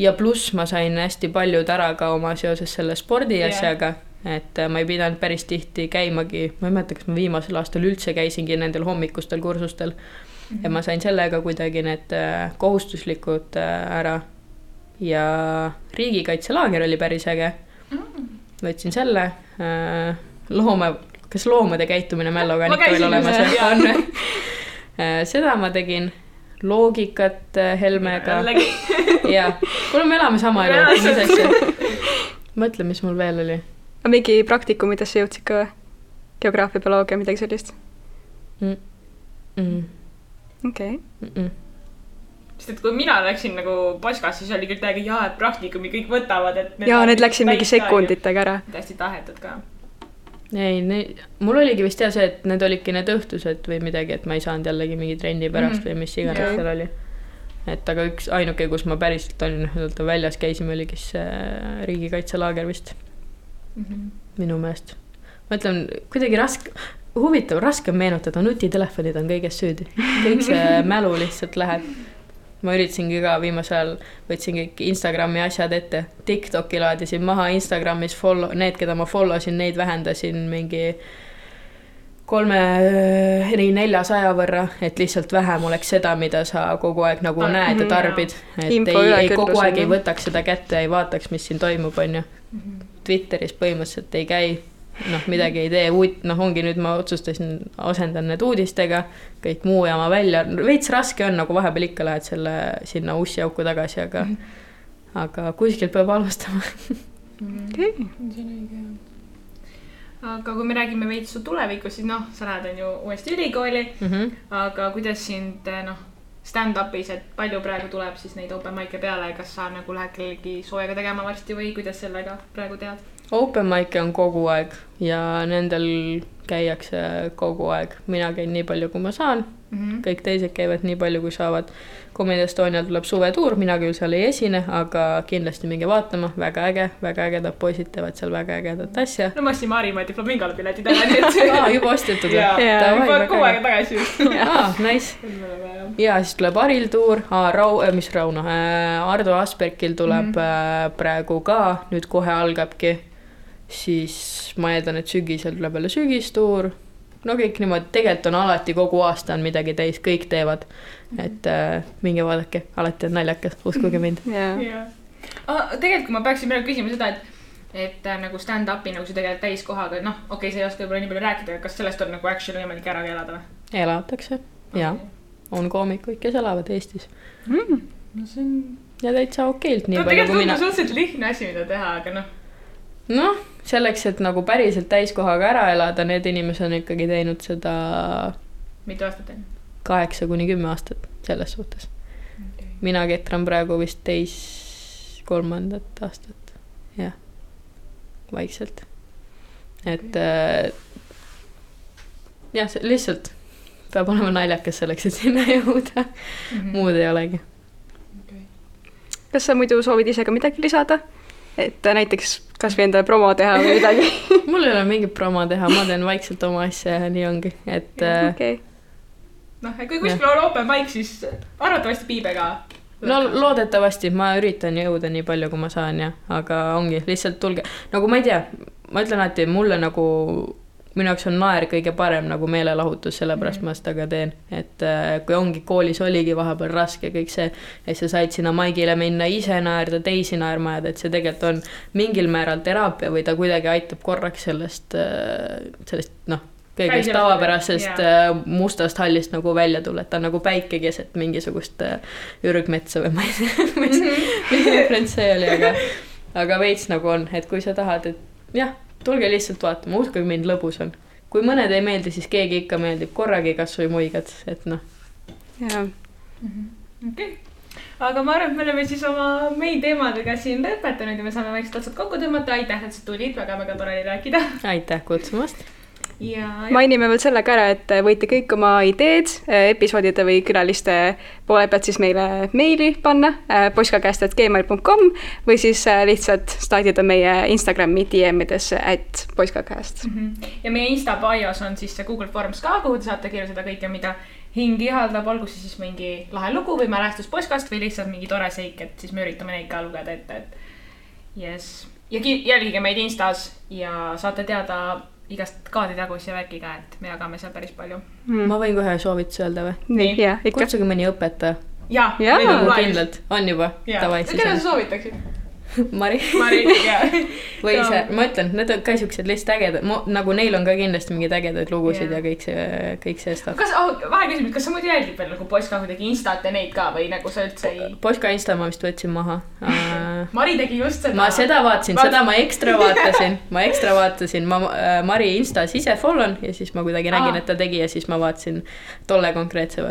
Ja pluss ma sain hästi paljud ära ka oma seoses selle spordi asjaga, et ma ei pidanud päris tihti käimagi, ma ei mäleta, kas ma viimasel aastal üldse käisingi nendel hommikustel kursustel ja ma sain sellega kuidagi need kohustuslikud ära ja riigikaitselaager oli päris äge. Võtsin selle kas loomade käitumine Mälloga on ikka veel olemas? Seda ma tegin, loogikat Helmega. Ja, kuule me elame sama elu. Mõtle, mis mul veel oli. A mingi praktikum, mida sa jõudsid ka? Geograafia, bioloogia, midagi sellist? Okei. Sest et kui mina läksin nagu Poskas, siis oli küll täiega et praktikumi kõik võtavad. Need läksid mingi sekunditega ära. Hästi tahetud ka. ei, mul oligi vist see, et need olidki need õhtused või midagi, et ma ei saanud jällegi mingi trenni pärast või mis iganes seal oli. Et aga ainuke, kus ma päriselt olin väljas käisime, oligi see riigikaitselaager vist. Minu meelest. Ma ütlen, kuidagi huvitav, raske meenutada, nutitelefonid on kõigest süüdi. Kõik see mälu lihtsalt läheb. Ma üritasingi ka viimasel võtsin kõik Instagrami asjad ette. TikToki laadisin maha Instagramis need, keda ma followsin, neid vähendasin mingi 300-400 võrra, et lihtsalt vähem oleks seda, mida sa kogu aeg nagu näed ja tarbid. Et ei kogu aeg ei võtaks seda kätte, ei vaataks, mis siin toimub, on ju. Twitteris põhimõtteliselt ei käi. Midagi ei tee, ongi nüüd ma otsustasin, asendan need uudistega, kõik muu jama välja. Veits raske on, nagu vahepeal ikka lähed sinna ussi auku tagasi, aga kuskilt peab alustama. Aga kui me räägime veits su tulevikus, siis sa lähed on ju uuesti ülikooli, aga kuidas sind stand-upis, et palju praegu tuleb siis neid open mic'e peale, kas sa nagu lähed kellegi soojaga tegema varsti või kuidas sellega praegu tead? Open mic'e on kogu aeg ja nendel käiakse kogu aeg. Mina käin nii palju, kui ma saan. Kõik teised käivad nii palju, kui saavad. Comedy Estonial tuleb suvetuur, mina küll seal ei esine, aga kindlasti minge vaatama. Väga ägedad poisid teevad seal väga ägedat asja. No ma ostsin Maarimaa diplomingale piletid ära. Juba ostetud. Juba kogu aeg tagasi. Nice. Ja siis tuleb Aril tuur, Rauno, Ardo Aspergil tuleb praegu ka, nüüd kohe algabki. Siis ma eeldan, et sügisel tuleb jälle sügistuur. No kõik niimoodi, tegelikult on alati kogu aasta on midagi täis, kõik teevad. Et minge vaadake, alati on naljakas, uskuge mind. Tegelikult kui ma peaksin praegu küsima seda, et nagu stand-upi nagu see tegelikult täiskohaga, okei, see ei oska võib-olla nii palju rääkida, kas sellest on nagu actually võimalik ära elada või? Elatakse, jaa. On koomikuid, kes elavad Eestis. Ja täitsa okeilt nii palju kui mina. Tegelikult on suhteliselt lihtne asi, mida teha, aga selleks, et nagu päriselt täiskohaga ära elada, need inimesed on ikkagi teinud seda mitu aastat enne? 8-10 aastat selles suhtes. Mina ketran praegu vist 3. aastat. Jah, vaikselt. Et lihtsalt peab olema naljakas selleks, et sinna jõuda. Muud ei olegi. Kas sa muidu soovid ise ka midagi lisada? Et näiteks kas või endale promo teha või midagi? Mul ei ole mingit promo teha, ma teen vaikselt oma asja ja nii ongi. Et kui kuskil on open mic, siis arvatavasti Piibe ka. Loodetavasti, ma üritan jõuda nii palju, kui ma saan, aga ongi, lihtsalt tulge. Nagu ma ei tea, ma ütlen alati, mulle nagu minu jaoks on naer kõige parem nagu meelelahutus, sellepärast ma seda ka teen. Et kui ongi koolis oligi vahepeal raske kõik see, et sa said sinna maigile minna ise naerda, teisi naermajad, et see tegelikult on mingil määral teraapia või ta kuidagi aitab korraks sellest kõigest tavapärasest mustast hallist nagu välja tulla, et ta on nagu päike keset mingisugust ürgmetsa või ma ei tea, mis referents see oli, aga veits nagu on, et kui sa tahad, et jah, tulge lihtsalt vaatama, uskuge mind, lõbus on. Kui mõned ei meeldi, siis keegi ikka meeldib korragi kas või muigad, et Okay. Aga ma arvan, et me oleme siis oma main teemadega siin lõpetanud ja me saame vaikselt otsad kokku tõmmata. Aitäh, et sa tulid, väga tore rääkida. Aitäh kutsumast. Mainime veel sellega ära, et võite kõik oma ideed episoodide või külaliste poole pealt siis meile meili panna poiskakast@gmail.com või siis lihtsalt staadida meie Instagrami DM-idesse @poiskakast. Ja meie Insta bios on siis see Google Forms ka, kuhu te saate kirjutada kõike, mida hing ihaldab, olgu siis mingi lahe lugu või mälestus poiskast või lihtsalt mingi tore seik, et siis me üritame neid ka lugeda ette. Yes. Ja jälgige meid Instas ja saate teada igast kaaditagus ja värkiga, et me jagame seal päris palju. Ma võin kohe soovituse öelda või? Nii, kutsuge mõni õpetaja. Jaa. Kindlalt, on juba. Keda sa soovitaksid? Mari, jaa. Või see, ma ütlen, need on ka siuksed lihtsalt ägedad, nagu neil on ka kindlasti mingid ägedaid lugusid ja kõik see stuff. Vahe küsimus, kas sa muidu jälgid veel nagu Poiska kuidagi Instat ja neid ka või nagu sa üldse ei... Poiska Insta ma vist võtsin maha. Mari tegi just seda. Ma seda vaatasin, seda ma ekstra vaatasin. Ma Mari Instas ise follon ja siis ma kuidagi nägin, et ta tegi ja siis ma vaatasin tolle konkreetse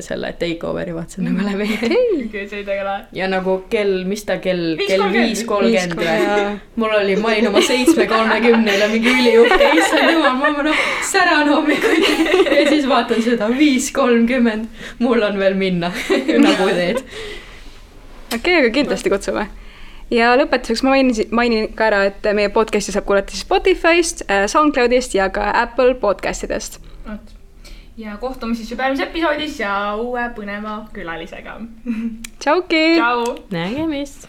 selle takeoveri vaatasin nagu läbi. See ei tegele. Ja nagu mis ta kell 5 5.30 või? Mul oli, ma olin oma 7.30 mingi üliuhke, issand jumal, ma säran hommikuti ja siis vaatan seda 5.30, mul on veel minna nagu teed. Okei, aga kindlasti kutsume. Ja lõpetuseks ma mainin ka ära, et meie podcasti saab kuulata siis Spotify'st, SoundCloudist ja ka Apple podcastidest. Ja kohtume siis juba järgmises episoodis ja uue põneva külalisega. Tšauki! Tšau! Nägemist!